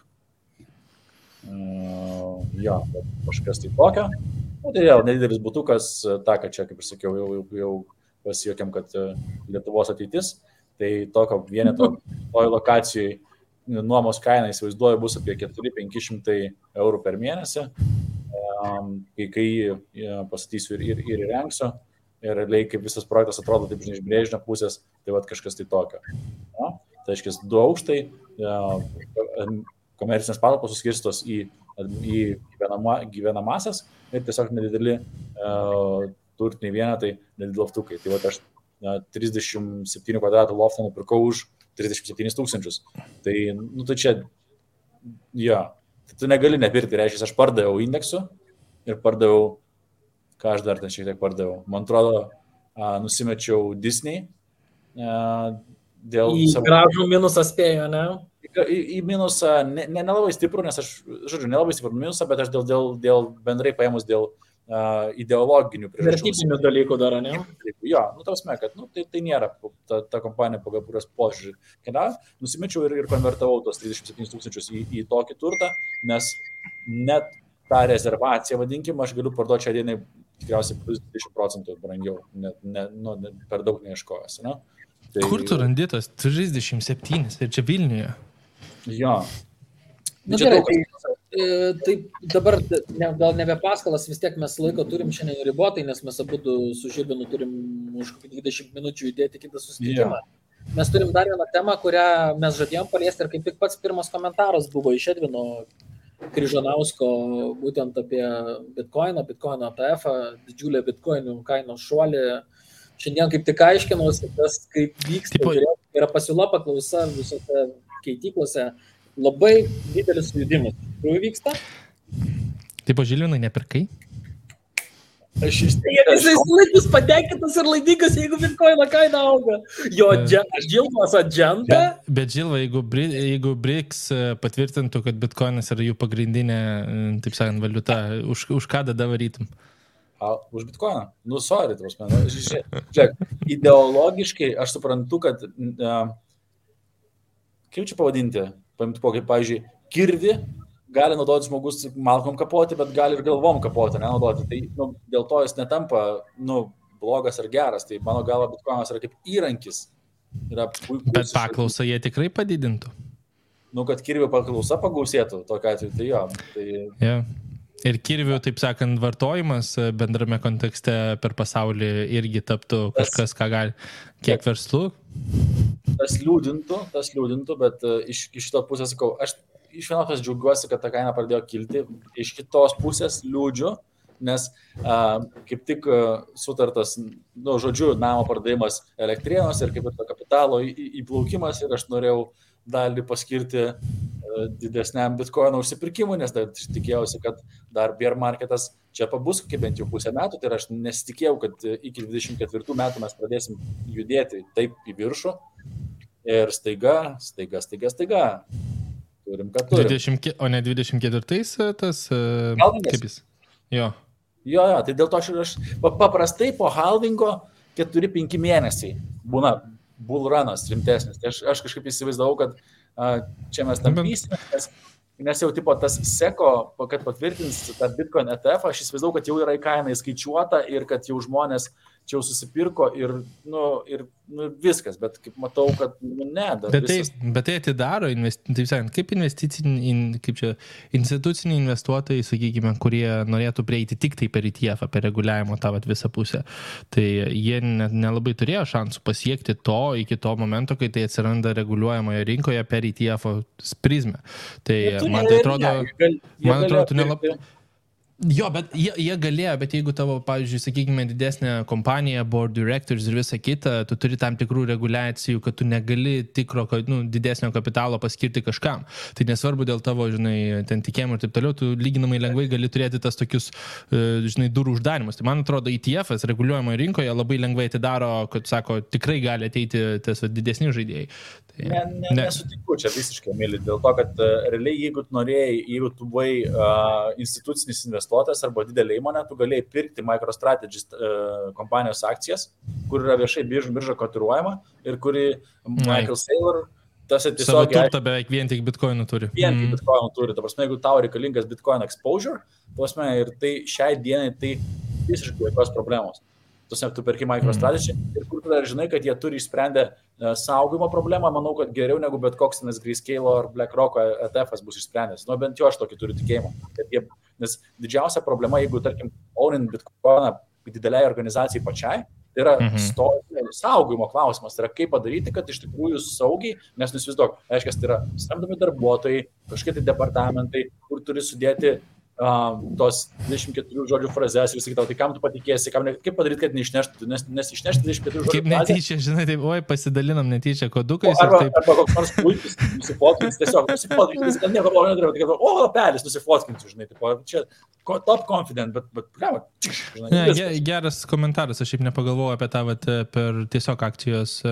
Jo, kažkas tai tokio. Tai vėl nedidelis butukas, tą, kad čia, kaip ir sakiau, jau pasijuokėm, kad Lietuvos ateitis. Tai tokio vieneto toj lokacijai nuomos kaina, įsivaizduoju, bus apie 400-500 eurų per mėnesį, kai pastatysiu ir įrengsiu. Ir realiai, kaip visas projektas atrodo taip iš brėžinio pusės, tai kažkas tai tokio. Tai aiškiai, 2 aukštai, komercinės patalpos suskirstos į gyvenamasias ir tiesiog nedideli turtiniai vienetai, nedideli loftukai. Tai aš 37 kvadratų loftą nupirkau už 37 000. Tai, tai čia, tu negali nepirkti, reiškia, aš pardaviau indeksu ir pardaviau, ką aš dar ten šiek tiek pardaviau. Man atrodo, nusimečiau Disney dėl savo... Gražų minusą spėjo, ne? Į minusą, nelabai stiprų, nes aš, nelabai stiprų minusą, bet aš dėl bendrai paėmus dėl ideologinių priežasčių. Vertybinių dalykų dar, ne? Jo, tausme, kad tai nėra ta kompanija, pagal kurios požiūrį keliauja. Nusimečiau ir konvertavau tos 37 000 į tokį turtą, nes net tą rezervaciją, vadinkim, aš galiu parduoti šią dieną tikriausiai plus 20% brangiau, per daug neieškojęs. Ne? Tai... Kur tu randi tas 37 ir čia Vilniuje? Jo. Gerai, tai dabar gal nebe paskalas, vis tiek mes laiko turim šiandien ribotai, nes mes abu su Žilvinu turim už 20 minučių judėti kitą susitikimą. Yeah. Mes turim dar vieną temą, kurią mes žadėjom paliesti ir kaip tik pats pirmas komentaras buvo iš Edvino Kryžanausko būtent apie Bitcoino ETF, didžiulę Bitcoinų kainos šuolį. Šiandien kaip tik aiškinausi, tas kaip vyksta, yra pasiūla paklausa visose keityklose, labai didelis sujudimas. Kur vyksta? Taip, Žilvinai, nepirkai? Jisai laikus patenkintas ir laimingas, jeigu Bitcoino kaina auga. Jo Žilvas adženta. Bet Žilva, jeigu BRICS patvirtintų, kad Bitcoinas yra jų pagrindinė, taip sakant, valiuta, už ką tada varytum? Už Bitcoiną? Sorry, žiūrėk, ideologiškai aš suprantu, kad kaip čia pavadinti, pavyzdžiui, kirvi gali naudoti žmogus malkom kapoti, bet gali ir galvom kapoti, nenaudoti. Tai dėl to jis netampa blogas ar geras. Tai mano galva Bitcoinas yra kaip įrankis. Yra puikus. Bet paklausą jie tikrai padidintų. Kad kirvių paklausa pagausėtų, tokia atveju, tai jo. Tai... Yeah. Ir kirvių, taip sakant, vartojimas bendrame kontekste per pasaulį irgi taptų kažkas, ką gali. Kiek verslų? Tas liūdintų, bet iš šito pusės, sakau, aš iš vienos pusės džiaugiuosi, kad ta kaina pradėjo kilti, iš kitos pusės liūdžiu, nes kaip tik sutartas, žodžiu, namo pardavimas Elektrėnuose ir kaip ir to kapitalo įplaukimas ir aš norėjau dalį paskirti didesniam bitcoino užsipirkimui, nes tikėjausi, kad dar bear marketas čia pabus kokie bent jau pusę metų, tai aš nesitikėjau, kad iki 24 metų mes pradėsim judėti taip į viršų ir staiga. Turim, kad turim. O ne 24-ais tas... Halvingas? Kaip jis? Jo, tai dėl to aš paprastai po halvingo 4-5 mėnesiai būna bullrunas rimtesnis. Tai aš kažkaip įsivaizdavau, kad čia mes tam vysimės, nes jau tipo tas seko, kad patvirtins tą Bitcoin ETF, aš įsivaizdavau, kad jau yra į kainą įskaičiuota ir kad jau žmonės čia jau susipirko ir viskas, bet kaip matau, kad ne. Bet tai atidaro, taip sakant, kaip instituciniai investuotojai, sakykime, kurie norėtų prieiti tik tai per ETF, per reguliavimo tą visą pusę, tai jie nelabai turėjo šansų pasiekti to iki to momento, kai tai atsiranda reguliuojamoje rinkoje per ETF prizmę. Tai man tai atrodo, tu nelabai... Jo, bet jie galėjo, bet jeigu tavo, pavyzdžiui, sakykime, didesnė kompanija, board directors ir visa kita, tu turi tam tikrų reguliacijų, kad tu negali tikro, didesnio kapitalo paskirti kažkam. Tai nesvarbu dėl tavo, ten tikėjimų ir taip toliau, tu lyginamai lengvai gali turėti tas tokius, durų uždarimus. Tai man atrodo, ETF-as reguliuojamoje rinkoje labai lengvai atidaro, kad, sako, tikrai gali ateiti tas didesni žaidėjai. Nesutinku čia visiškai, mėly, dėl to, kad realiai, jeigu tu buvai institucinis investuotojas arba didelė įmonė, tu galėjai pirkti MicroStrategy kompanijos akcijas, kur yra viešai birža kotiruojama ir kuri Michael Saylor, tas tiesiog... Savo turtą beveik vien tik bitcoinų turi. Vien tik bitcoinų turi. Ta prasme, jeigu tau reikalingas bitcoin exposure, ta prasme, ir tai šiai dienai tai visiškai jokios problemos. Tu perki MicroStrategy ir kur tu dar žinai, kad jie turi išsprendę saugojimo problemą, manau, kad geriau negu bet koks Grayscale ar BlackRock ETF-as bus išsprendęs. Bent jau aš tokį turiu tikėjimą. Nes didžiausia problema, jeigu, tarkim, ownint bitcoiną dideliai organizacijai pačiai, tai yra saugojimo klausimas. Tai yra kaip padaryti, kad iš tikrųjų saugiai, nes įsivaizduok, aiškiai, tai yra samdomi darbuotojai, kažkokie tai departamentai, kur turi sudėti tos 24 žodžių frazes ir sakyti, tai kam tu patikėsi, kaip padaryti, kad neišneštų, nes išnešti 24 žodžių kaip netyčia, žinai, taip, pasidalinam netyčia kodukais. Arba koks nors puikis nusifotkinti, tiesiog nusifotkinti, kad nieko blogo nedarau, tai kad, pelis nusifotkinti, žinai, taip, čia top confident, bet žinai. Geras komentaras, aš šiaip nepagalvojau apie tą per tiesiog akcijos.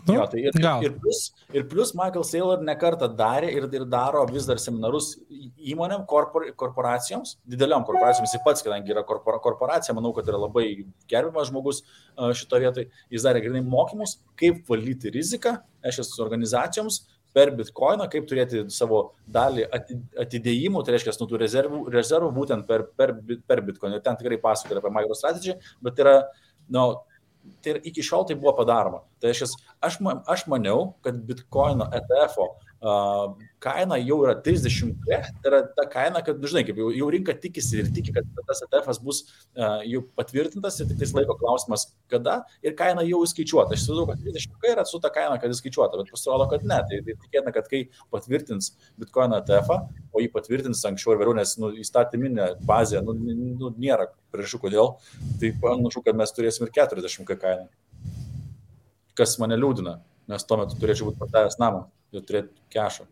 Jo, tai ir plus Michael Saylor nekartą darė ir daro vis dar seminarus įmonėm, korporacijoms, dideliom korporacijoms, jis pats, kadangi yra korporacija, manau, kad yra labai gerbiamas žmogus šito vietoj, jis darė grinai mokymus, kaip valdyti riziką šios organizacijoms per bitcoiną, kaip turėti savo dalį atidėjimų, tai reiškia, tų rezervų būtent per bitcoiną. Ir ten tikrai pasakoja apie MicroStrategy, bet yra, tai iki šiol tai buvo padaroma. Tai aš maniau, kad bitcoino ETF-o kaina jau yra 30, tai yra ta kaina, kad, žinai, kaip jau rinka tikisi ir tiki, kad tas ETF-as bus jau patvirtintas ir tik tais laiko klausimas, kada ir kaina jau įskaičiuota. Aš įsivaizduoju, kad 30 yra su ta kaina, kad įskaičiuota, bet pasirodo, kad ne. Tai tikėtina, kad kai patvirtins bitcoino ETF-ą, o jį patvirtins anksčiau ir vėliau, nes įstatyminė bazė nėra priežasčių kodėl, tai panašu, kad mes turėsim ir 40 kainą. Kas mane liūdina, nes tuo metu turėčiau būti pardavęs namą ir turėti kešą.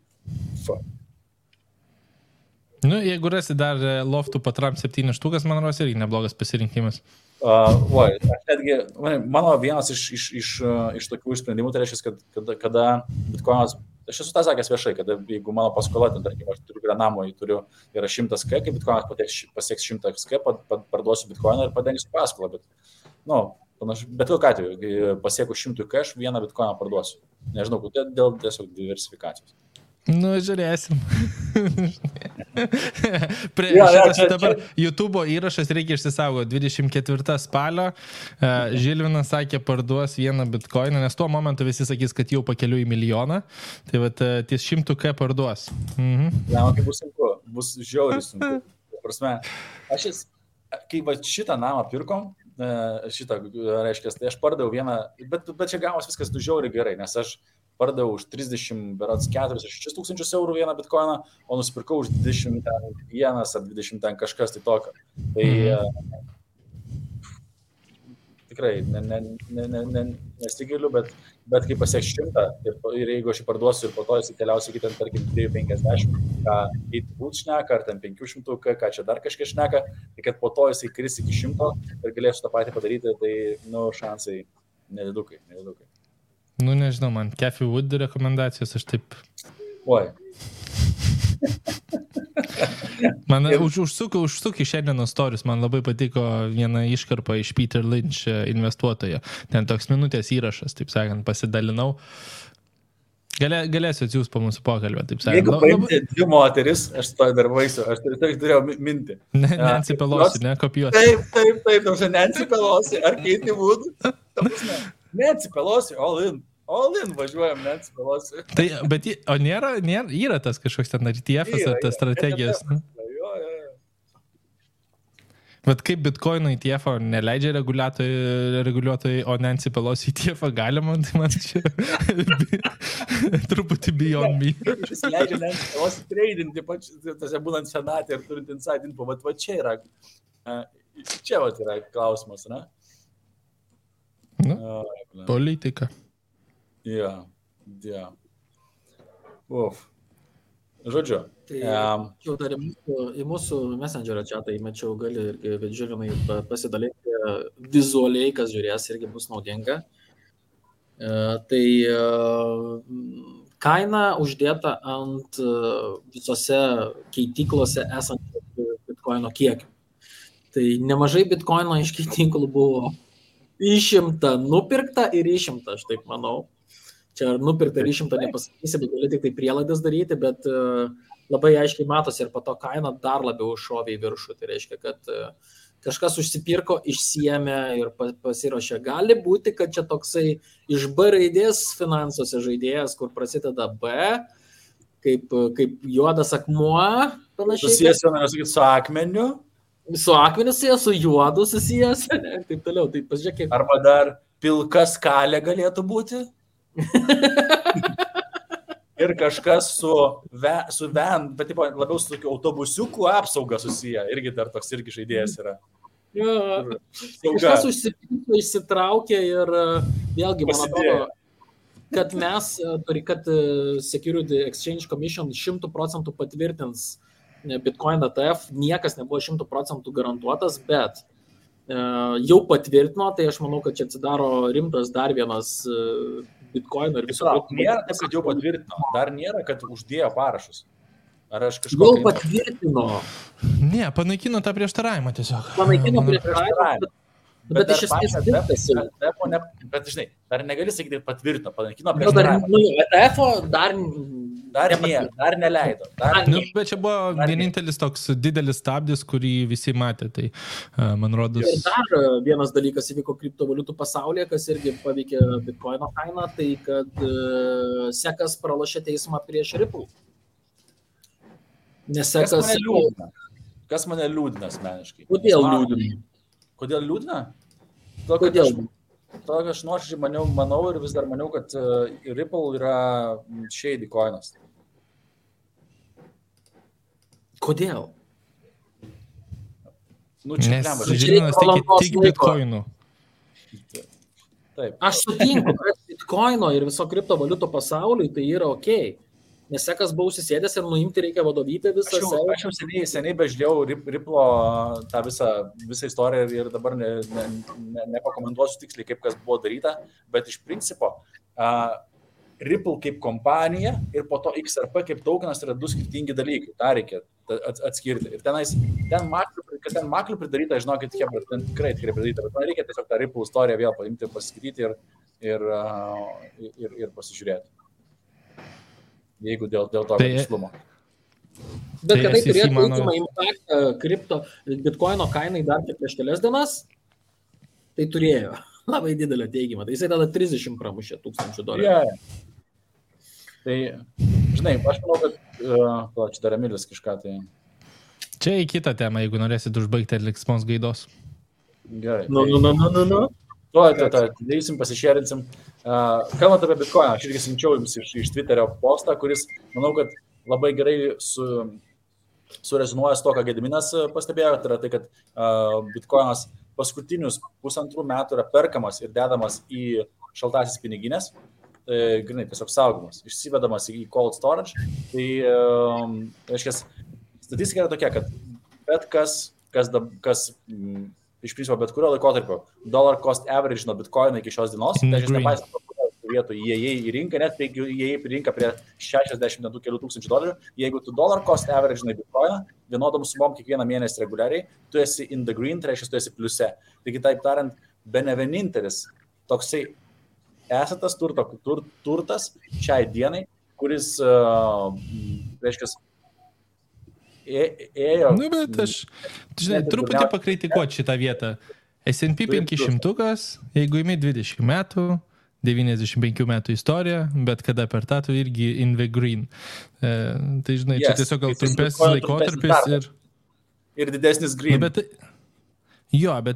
Jeigu rasi dar loftų patram 7 štukas, man rodos irgi neblogas pasirinkimas. Mano vienas iš tokių sprendimų, tai reiškia, kad kada bitcoinas, aš esu tą sakęs viešai, kad jeigu mano paskola, tarkim, aš turiu prie namo, yra 100 K, kai bitcoinas pasieks 100 K, parduosiu bitcoiną ir padengsiu paskolą, bet kokiu atveju, kai pasieku 100 K, aš vieną bitcoiną parduosiu. Nežinau, dėl tiesiog diversifikacijos. Žiūrėsim. Šitas dabar YouTube'o įrašas reikia išsisaugoti. 24 spalio Žilvinas sakė, parduos vieną bitcoiną, nes tuo momentu visi sakys, kad jau pakeliu į milijoną. Tai ties 100 K parduos. Kai bus sunku, bus žiauriai sunku. Prasme, kai šitą namą pirkom, šitą, reiškia, tai aš pardaviau vieną, bet čia gavos viskas žiauriai gerai, nes aš pardaviau už 34 tūkstančius eurų vieną bitkoiną, o nusipirkau už 21 ar 20 ten kažkas tai tokio. Tai tikrai nesigiliu, bet kai pasieks 100 ir jeigu aš jį parduosiu ir po to jis keliausiu iki ten, tarkim, 250, ką būt šneka, ar ten 500, ką čia dar kažkas šneka, tai kad po to jis kris iki 100 ir galėsiu tą patį padaryti, tai, šansai nedidukai. Nu, nežinau, man Cathy Wood rekomendacijos, aš taip... Oi. Man užsuk į šiandienos storius, man labai patiko viena iškarpa iš Peter Lynch investuotojo. Ten toks minutės įrašas, taip sakant, pasidalinau. Galėsiu atsiųsti po mūsų pokalbę, taip sakant. Jeigu paimti dvi moteris, aš to dar vaisiu, aš turėjau mintį. Nancy Pelosi, ne, kopijuoti. Taip, Nancy Pelosi, ar Katie Wood? Nancy Pelosi, all in važiuojam, Nancy Pelosi. Tai, bet, o yra tas kažkoks ten RTF-as ar tas strategijas? Jo. Bet kaip Bitcoino ETF-o neleidžia reguliuotojai, o Nancy Pelosi ETF-o galima, tai man čia truputį beyond me. Jis leidžia Nancy Pelosi tradinti, tose būnant senatė ir turint inside info, va čia yra, yra klausimas, ne? Politika. Jo. Žodžiu. Tai jau dar į mūsų Messengerio chatą įmečiau, gali irgi žiūrimai pasidalinti vizualiai, kas žiūrės, irgi bus naudinga. Tai kaina uždėta ant visose keityklose esančių bitkoino kiekių. Tai nemažai bitkoino iš keityklų buvo išimta, nupirkta ir išimta, aš taip manau. Čia ar nupirkta ir išimta nepasakysi, bet gali tik tai prielaidas daryti, bet labai aiškiai matosi ir po to kaina dar labiau šovė į viršų. Tai reiškia, kad kažkas užsipirko, išsiėmė ir pasiruošė. Gali būti, kad čia toksai iš B raidės finansuose žaidėjas, kur prasideda B, kaip juodas akmuo, panašiai. Susijęs, noriu sakyti, su akmeniu. Su akmeniu susijęs, su juodu susijęs, taip toliau. Tai pasižiūrėk, arba dar pilka skalė galėtų būti. Ir kažkas su bet labiau su tokiu autobusiukų apsauga susiję. Irgi dar toks irgi žaidėjas yra. Jo, kažkas išsitraukė ir vėlgi, man atrodo, kad Security Exchange Commission 100% patvirtins Bitcoin ETF, niekas nebuvo 100% garantuotas, bet jau patvirtino, tai aš manau, kad čia atsidaro rimtas dar vienas Bitcoino ir viso. Nėra, kad jau patvirtino, dar nėra, kad uždėjo parašus. Ar aš kažko... Jau patvirtino. Ne, panaikino tą prieštaravimą tiesiog. Panaikino prieštaravimą, bet iš esmės dirbtasi. Bet žinai, dar negali sakyti patvirtino, panaikino prieštaravimą. ETF-o Dar neleido. Bet čia buvo vienintelis toks didelis stabdis, kurį visi matė. Tai, man rodos... Ir dar vienas dalykas įvyko kriptovaliutų pasaulyje, kas irgi paveikė Bitcoino kainą, tai kad SECas pralošė teismą prieš Ripple. Nes SECas... Kas mane liūdina asmeniškai? Kodėl liūdina? Kodėl? Tokio aš nuoširdžiai manau ir vis dar maniau, kad Ripple yra shady coinas. Nes Kodėl? žinomas tik bitcoinų. Taip. Aš sutinku, kad bitcoino ir viso kriptovaliutų pasauliui tai yra okei. Nes SECas buvo užsisėdęs ir nuimti reikia vadovybę visą. Aš jau seniai bežiūrėjau Ripple tą visą istoriją ir dabar nepakomentuosiu tiksliai, kaip kas buvo daryta, bet iš principo Ripple kaip kompanija ir po to XRP kaip tokenas yra du skirtingi dalykai. Ta reikia atskirti. Ir ten maklių pridaryta, žinokit, ten tikrai pridaryta, bet man reikia tiesiog tą Ripple istoriją vėl paimti, pasiskaityti ir pasižiūrėti. Jeigu dėl to tikslumo. Bet kad tai turėtų teigiamą impaktą bitcoino kainai dar prieš kelias dienas, tai turėjo labai didelę teigiamą. Tai jisai tada 30 pramušė $1,000. Yeah. Tai, žinai, aš manau, kad čia dar Emilis kažką tai... Čia į kitą temą, jeigu norėsit užbaigti liksmos gaidos. Gerai. Nu. Darysim, pasišėrinsim. Kalbant apie Bitcoiną, aš irgi siunčiau jums iš Twitterio postą, kuris, manau, kad labai gerai surezonuoja su to, ką Gediminas pastebėjo, tai yra tai, kad Bitcoinas paskutinius 1,5 metų yra perkamas ir dedamas į šaltasis piniginės, grinai, tiesiog saugomas, išsivedamas į cold storage. Tai, reiškia, statistika yra tokia, kad bet kas iš principo bet kurio laikotarpio dollar cost average nuo Bitcoino iki šios dienos, tai aš nepaisant vietų įėjai į rinką, net jeigu įėjai į rinką prie 60 kelių tūkstančių $, jeigu tu dollar cost average nuo Bitcoino, vienodom sumom kiekvieną mėnesį reguliariai, tu esi in the green, tai reiškia, tu esi pliuse. Taigi, taip tariant, bene vienintelis toksai esatas turtas šiai dienai, kuris, reiškia, ėjo... Nu, bet aš, žinai, truputį pakritikuoti šitą vietą. S&P 500, jeigu imi 20 metų, 95 metų istorija, bet kada per tą tu irgi in the green. Tai, žinai, čia tiesiog gal trumpesnis laikotarpis ir didesnis green. Bet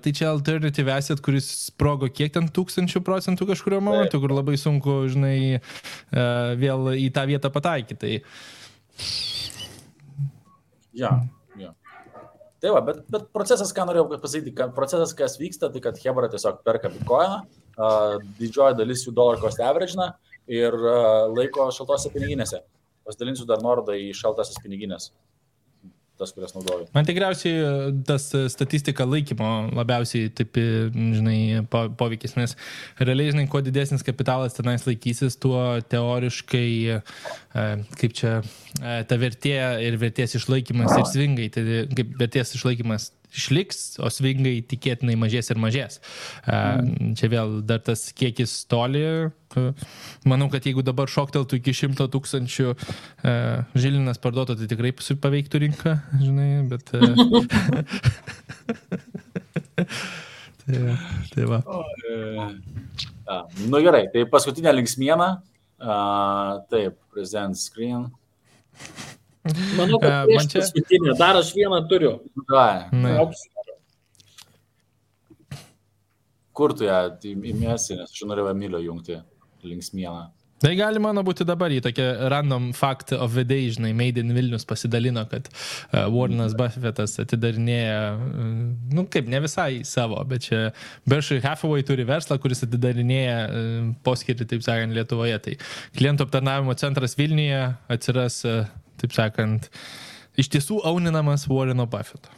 tai čia alternative asset, kuris sprogo kiek ten 1000% kažkurio momentu, kur labai sunku, žinai, vėl į tą vietą pataikyti. Tai... Ja. Tai va, bet procesas, ką norėjau pasakyti, procesas, kas vyksta, tai kad Hebra tiesiog perka Bitcoiną, didžioji dalis jų dollar cost average ir laiko šaltose piniginėse. Pasidalinsiu dar nuorodą į šaltasis piniginės, tas, kurias naudoju. Man tikriausiai tas statistika laikymo labiausiai taip, žinai, poveikis, nes realiai, žinai, kuo didesnis kapitalas tenais laikysis, tuo teoriškai, kaip čia, ta vertė ir vertės išlaikymas ir svingai, tai kaip vertės išlaikymas išliks, o svingai tikėtinai mažės ir mažės. Čia vėl dar tas kiekis toli. Manau, kad jeigu dabar šokteltų iki 100 000 Žilinas parduotų, tai tikrai paveiktų rinką, žinai, bet... tai va. Nu gerai, tai paskutinė linksmiena. Taip, present screen. Manau, kad paskutinė. Dar aš vieną turiu. Kur tu ją įmėsi, nes aš norėjau Emilio jungti linksmieną. Tai gali mano būti dabar į tokią random fact of the day, žinai, Made in Vilnius pasidalino, kad Warrenas Buffettas atidarinėja, nu kaip, ne visai savo, bet čia Berkshire Hathaway turi verslą, kuris atidarinėja poskirtį, taip sakant, Lietuvoje. Tai klientų aptarnavimo centras Vilniuje atsiras, taip sakant, iš tiesų auninamas Warreno Buffetto.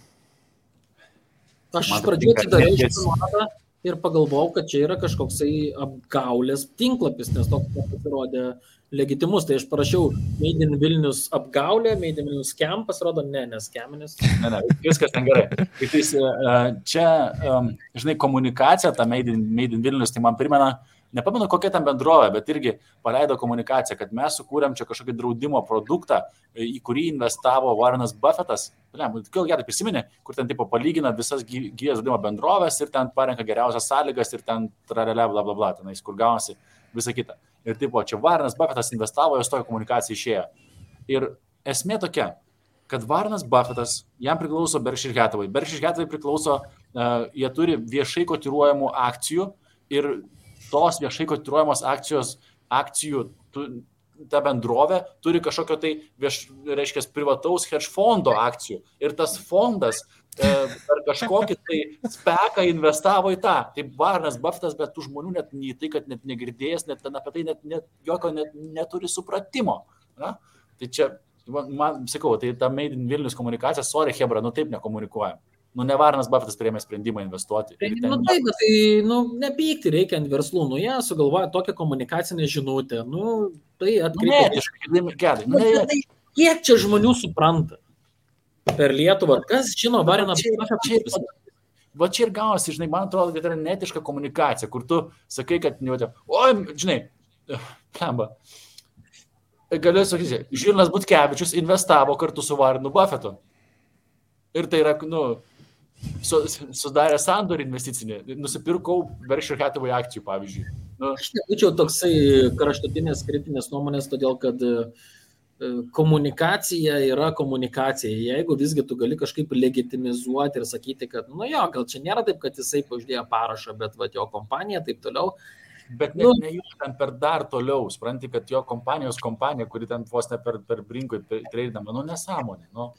Aš iš pradžių atidariau šitą nuorodą ir pagalvojau, kad čia yra kažkoksai apgaulės tinklapis, nes toks pasirodė legitimus. Tai aš parašiau Made in Vilnius apgaulė, Made in Vilnius scam, pasirodo, ne scaminis. Ne, viskas ten gerai. Čia, žinai, komunikacija, ta Made in Vilnius, tai man primena, nepamenu kokia ten bendrovė, bet irgi paleido komunikaciją, kad mes sukūrėm čia kažkokį draudimo produktą, į kurį investavo Warrenas Buffettas. Gerai prisiminė, kur ten tipo palygina visas gyvės draudimo bendrovės ir ten parenka geriausias sąlygas ir ten tralelė, bla bla bla, tenais, kur gaunasi visą kitą. Ir tipo, čia Warrenas Buffettas investavo, jos tokia komunikacija išėjo. Ir esmė tokia, kad Warrenas Buffettas, jam priklauso Berkshire Hathaway. Berkshire Hathaway priklauso, jie turi viešai kotiruojamų akcijų ir tos viešai kotiruojamos akcijų ta bendrovė turi kažkokio tai, reiškia, privataus hedge fondo akcijų. Ir tas fondas per kažkokį tai speką investavo į tą. Tai Warrenas Buffettas, bet tų žmonių net į tai, kad net negirdėjęs, net apie tai net jokio neturi supratimo. Na? Tai čia, man sakau, tai ta Made in Vilnius komunikacija, sorry, Hebra, nu taip nekomunikuojam. Nu, ne Warrenas Buffettas priėmė sprendimą investuoti. Nu, taip, bet tai, nepykti reikia ant verslų. Nu, jie sugalvoja tokią komunikacinę žinutę. Nu, tai atkreipia. Kiek čia žmonių supranta per Lietuvą? Kas žino Warreną Buffettą? Va čia ir gausi, žinai, man atrodo, kad tai yra netiška komunikacija, kur tu sakai, kad, oi, žinai, kamba. Galiu sakyti, Žilinas Butkevičius investavo kartu su Warrenu Buffettu. Ir tai yra, sudarė sandorį investicinį. Nusipirkau Berkshire Hathaway akcijų, pavyzdžiui. Aš nebūčiau toksai kraštutinės kritinės nuomonės, todėl kad komunikacija yra komunikacija. Jeigu visgi tu gali kažkaip legitimizuoti ir sakyti, kad, nu jo, gal čia nėra taip, kad jisai uždėjo parašą, bet va, jo kompanija, taip toliau. Bet ne jų ten per dar toliau, supranti, kad jo kompanija, kuri ten vos ne per brinkui treidama, nu nesąmonė. Nu.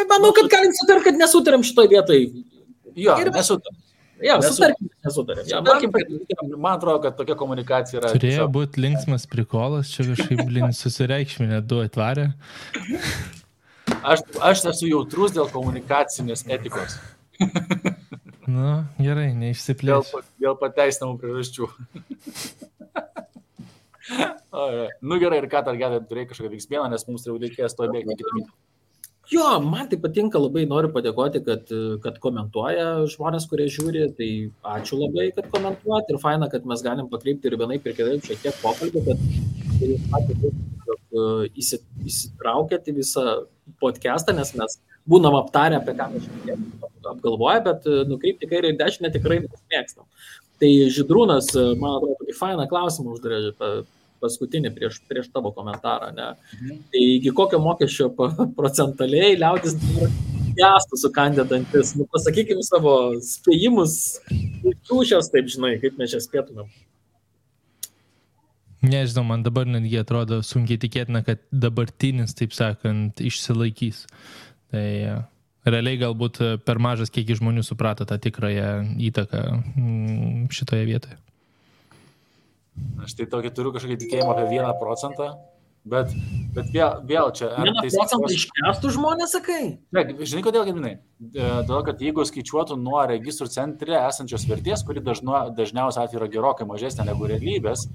Manau, kad galim sutarti, kad nesutarėm šitoj vietoj. Jo, nesutarėm. Jo, sutarkim, nesutarėm. Man atrodo, kad tokia komunikacija yra. Turėjo būti linksmas prikolas, čia kažkaip susireikšminė, du atvarė. Aš esu jautrus dėl komunikacinės etikos. Nu, gerai, neišsiplėsiu. Dėl pateisinamų priežasčių. Nu gerai, ir ką dar gedai, turėjai kažkokią veiksmieną, nes mums jau reikės to bėgti kitą minutę. Jo, man tai patinka, labai noriu padėkoti, kad komentuoja žmonės, kurie žiūri, tai ačiū labai, kad komentuojat ir faina, kad mes galim pakreipti ir vienaip ir kitaip šiek tiek pokalbį, kad įsitraukėt į visą podcastą, nes mes būnam aptarę, apie ką mes šiek tiek apgalvoja, bet nukreipti kairę ir dešinę tikrai mėgstam. Tai Žydrūnas, man atrodo, tokį fainą klausimą uždarė paskutinį prieš tavo komentarą, ne? Tai iki kokio mokesčio procentaliai liaudis gestų sukandę dantis? Nu, pasakykim savo spėjimus, šios, taip žinai, kaip mes čia spėtumėm. Nežinau, man dabar netgi atrodo sunkiai tikėtina, kad dabartinis, taip sakant, išsilaikys. Tai realiai galbūt per mažas kiekis žmonių suprato tą tikrąją įtaką šitoje vietoje. Aš tai tokį turiu kažkokį tikėjimą apie 1%, bet vėl čia... 1% iškestų žmonės, sakai? Ne, žinai, kodėl, Gedminai? Todėl, kad jeigu skaičiuotų nuo registrų centre esančios vertės, kuri dažniausiai atveju yra gerokai mažesnė negu realybės,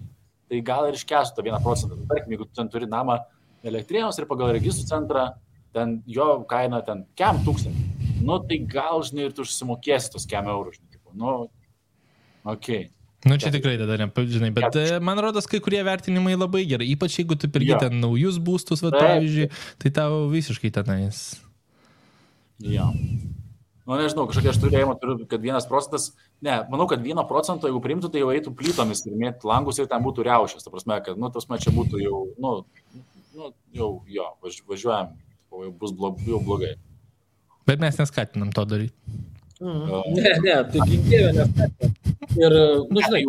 tai gal ir iškestų tą 1%. Tarkim, jeigu tu ten turi namą Elektrėnuose ir pagal registrų centrą, ten jo kaina ten 1000, nu tai gal, žinai, ir tu užsimokėsi tos 100 eurų, žinai, nu, okei. Nu, čia tikrai tada nežinai, bet man rodos, kai kurie vertinimai labai gerai, ypač jeigu tu pirgi ten naujus būstus, va, pavyzdžiui, tai tau visiškai tenais. Jo. Nu, nežinau, kažkokia aš turėjimą turiu, kad 1%, ne, manau, kad 1%, jeigu priimtų, tai jau eitų plytomis ir mėtų langus ir ten būtų riaušės, ta prasme, kad, nu, čia būtų jau, važiuojam, jau bus jau blogai. Bet mes neskatinam to daryti. Ne, tai ginkėjau neskatinam. Ir, nu, žinai,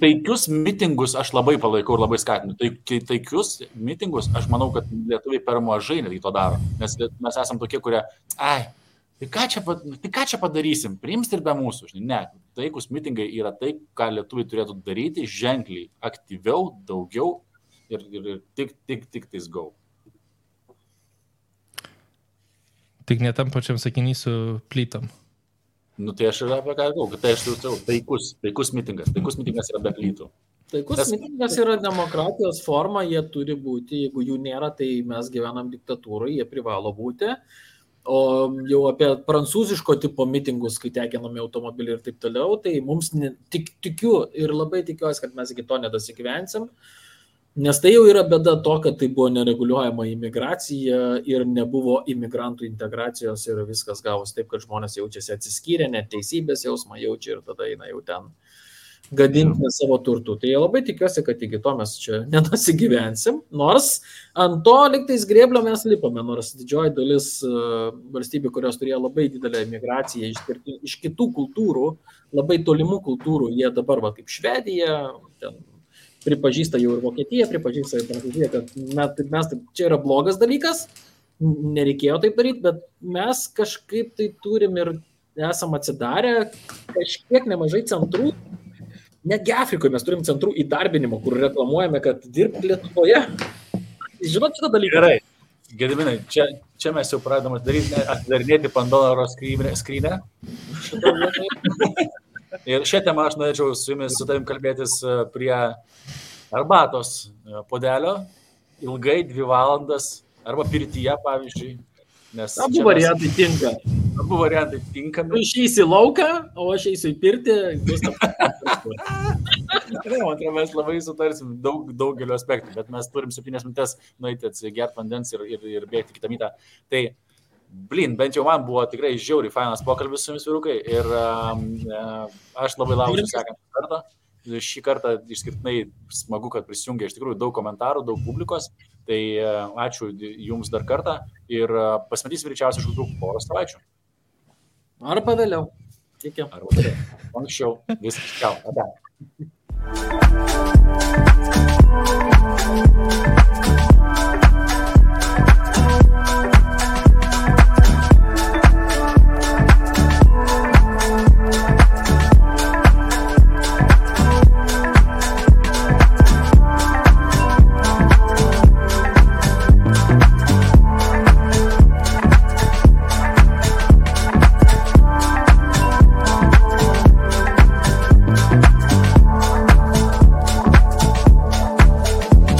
taikius mitingus aš labai palaikau ir labai skatinu. Taikius mitingus, aš manau, kad lietuviai per mažai netgi to daro. Nes mes esam tokie, kurie, tai ką čia padarysim, priims ir be mūsų. Žinai. Ne, taikus mitingai yra tai, ką lietuviai turėtų daryti ženkliai, aktyviau, daugiau ir tik tais go. Tik ne tam pačiam sakiny su plytom. Nu, tai aš ir apie ką galvoju, kad tai aš taikus mitingas. Taikus mitingas yra be plytų. Taikus mitingas yra demokratijos forma, jie turi būti, jeigu jų nėra, tai mes gyvenam diktatūrai, jie privalo būti. O jau apie prancūziško tipo mitingus, kai tekinami automobiliai ir taip toliau, tai mums tikiu ir labai tikiuosi, kad mes iki to nedasigyvensim. Nes tai jau yra bėda to, kad tai buvo nereguliuojama imigracija ir nebuvo imigrantų integracijos ir viskas gavos taip, kad žmonės jaučiasi atsiskyrę, net teisybės jausmą jaučia ir tada eina jau ten gadinti savo turtų. Tai labai tikiuosi, kad iki to mes čia nedasigyvensim, nors ant to liktais grėblio mes lipame, nors didžioji dalis valstybių, kurios turėjo labai didelę imigraciją iš kitų kultūrų, labai tolimų kultūrų, jie dabar va kaip Švedija, ten pripažįsta jau ir Vokietija, pripažįsta ir Prancūzija, kad mes čia yra blogas dalykas, nereikėjo taip daryti, bet mes kažkaip tai turim ir esam atsidarę kažkiek nemažai centrų, netgi Afrikoje mes turim centrų įdarbinimo, kur reklamuojame, kad dirbti Lietuvoje. Žinot šitą dalyką? Gerai, Gediminai, čia mes jau pradedam atidarinėti Pandoros skrynę. Ir šią temą aš norėčiau su jumis, su tavim kalbėtis prie arbatos puodelio, ilgai 2 valandas, arba pirtyje, pavyzdžiui. Abu variantai tinka. Abu variantai tinkami. Tu išeisi į lauką, o aš eisiu į pirtį. Mes labai sutarsim daugeliu aspektų, bet mes turim 7 minutės nueiti atsigert vandens ir bėgti kitą mytą. Tai bent jau man buvo tikrai žiauriai fainas pokalbis su jumis, vyrukai, ir aš labai lauksiu sekantį kartą. šį kartą išskirtinai smagu, kad prisijungia iš tikrųjų daug komentarų, daug publikos. Tai ačiū jums dar kartą ir pasimatysim greičiausiai už kokių porą savaičių. Arba vėliau. Iki. Arba vėliau. Anksčiau. Viskas. Čiau. Ate.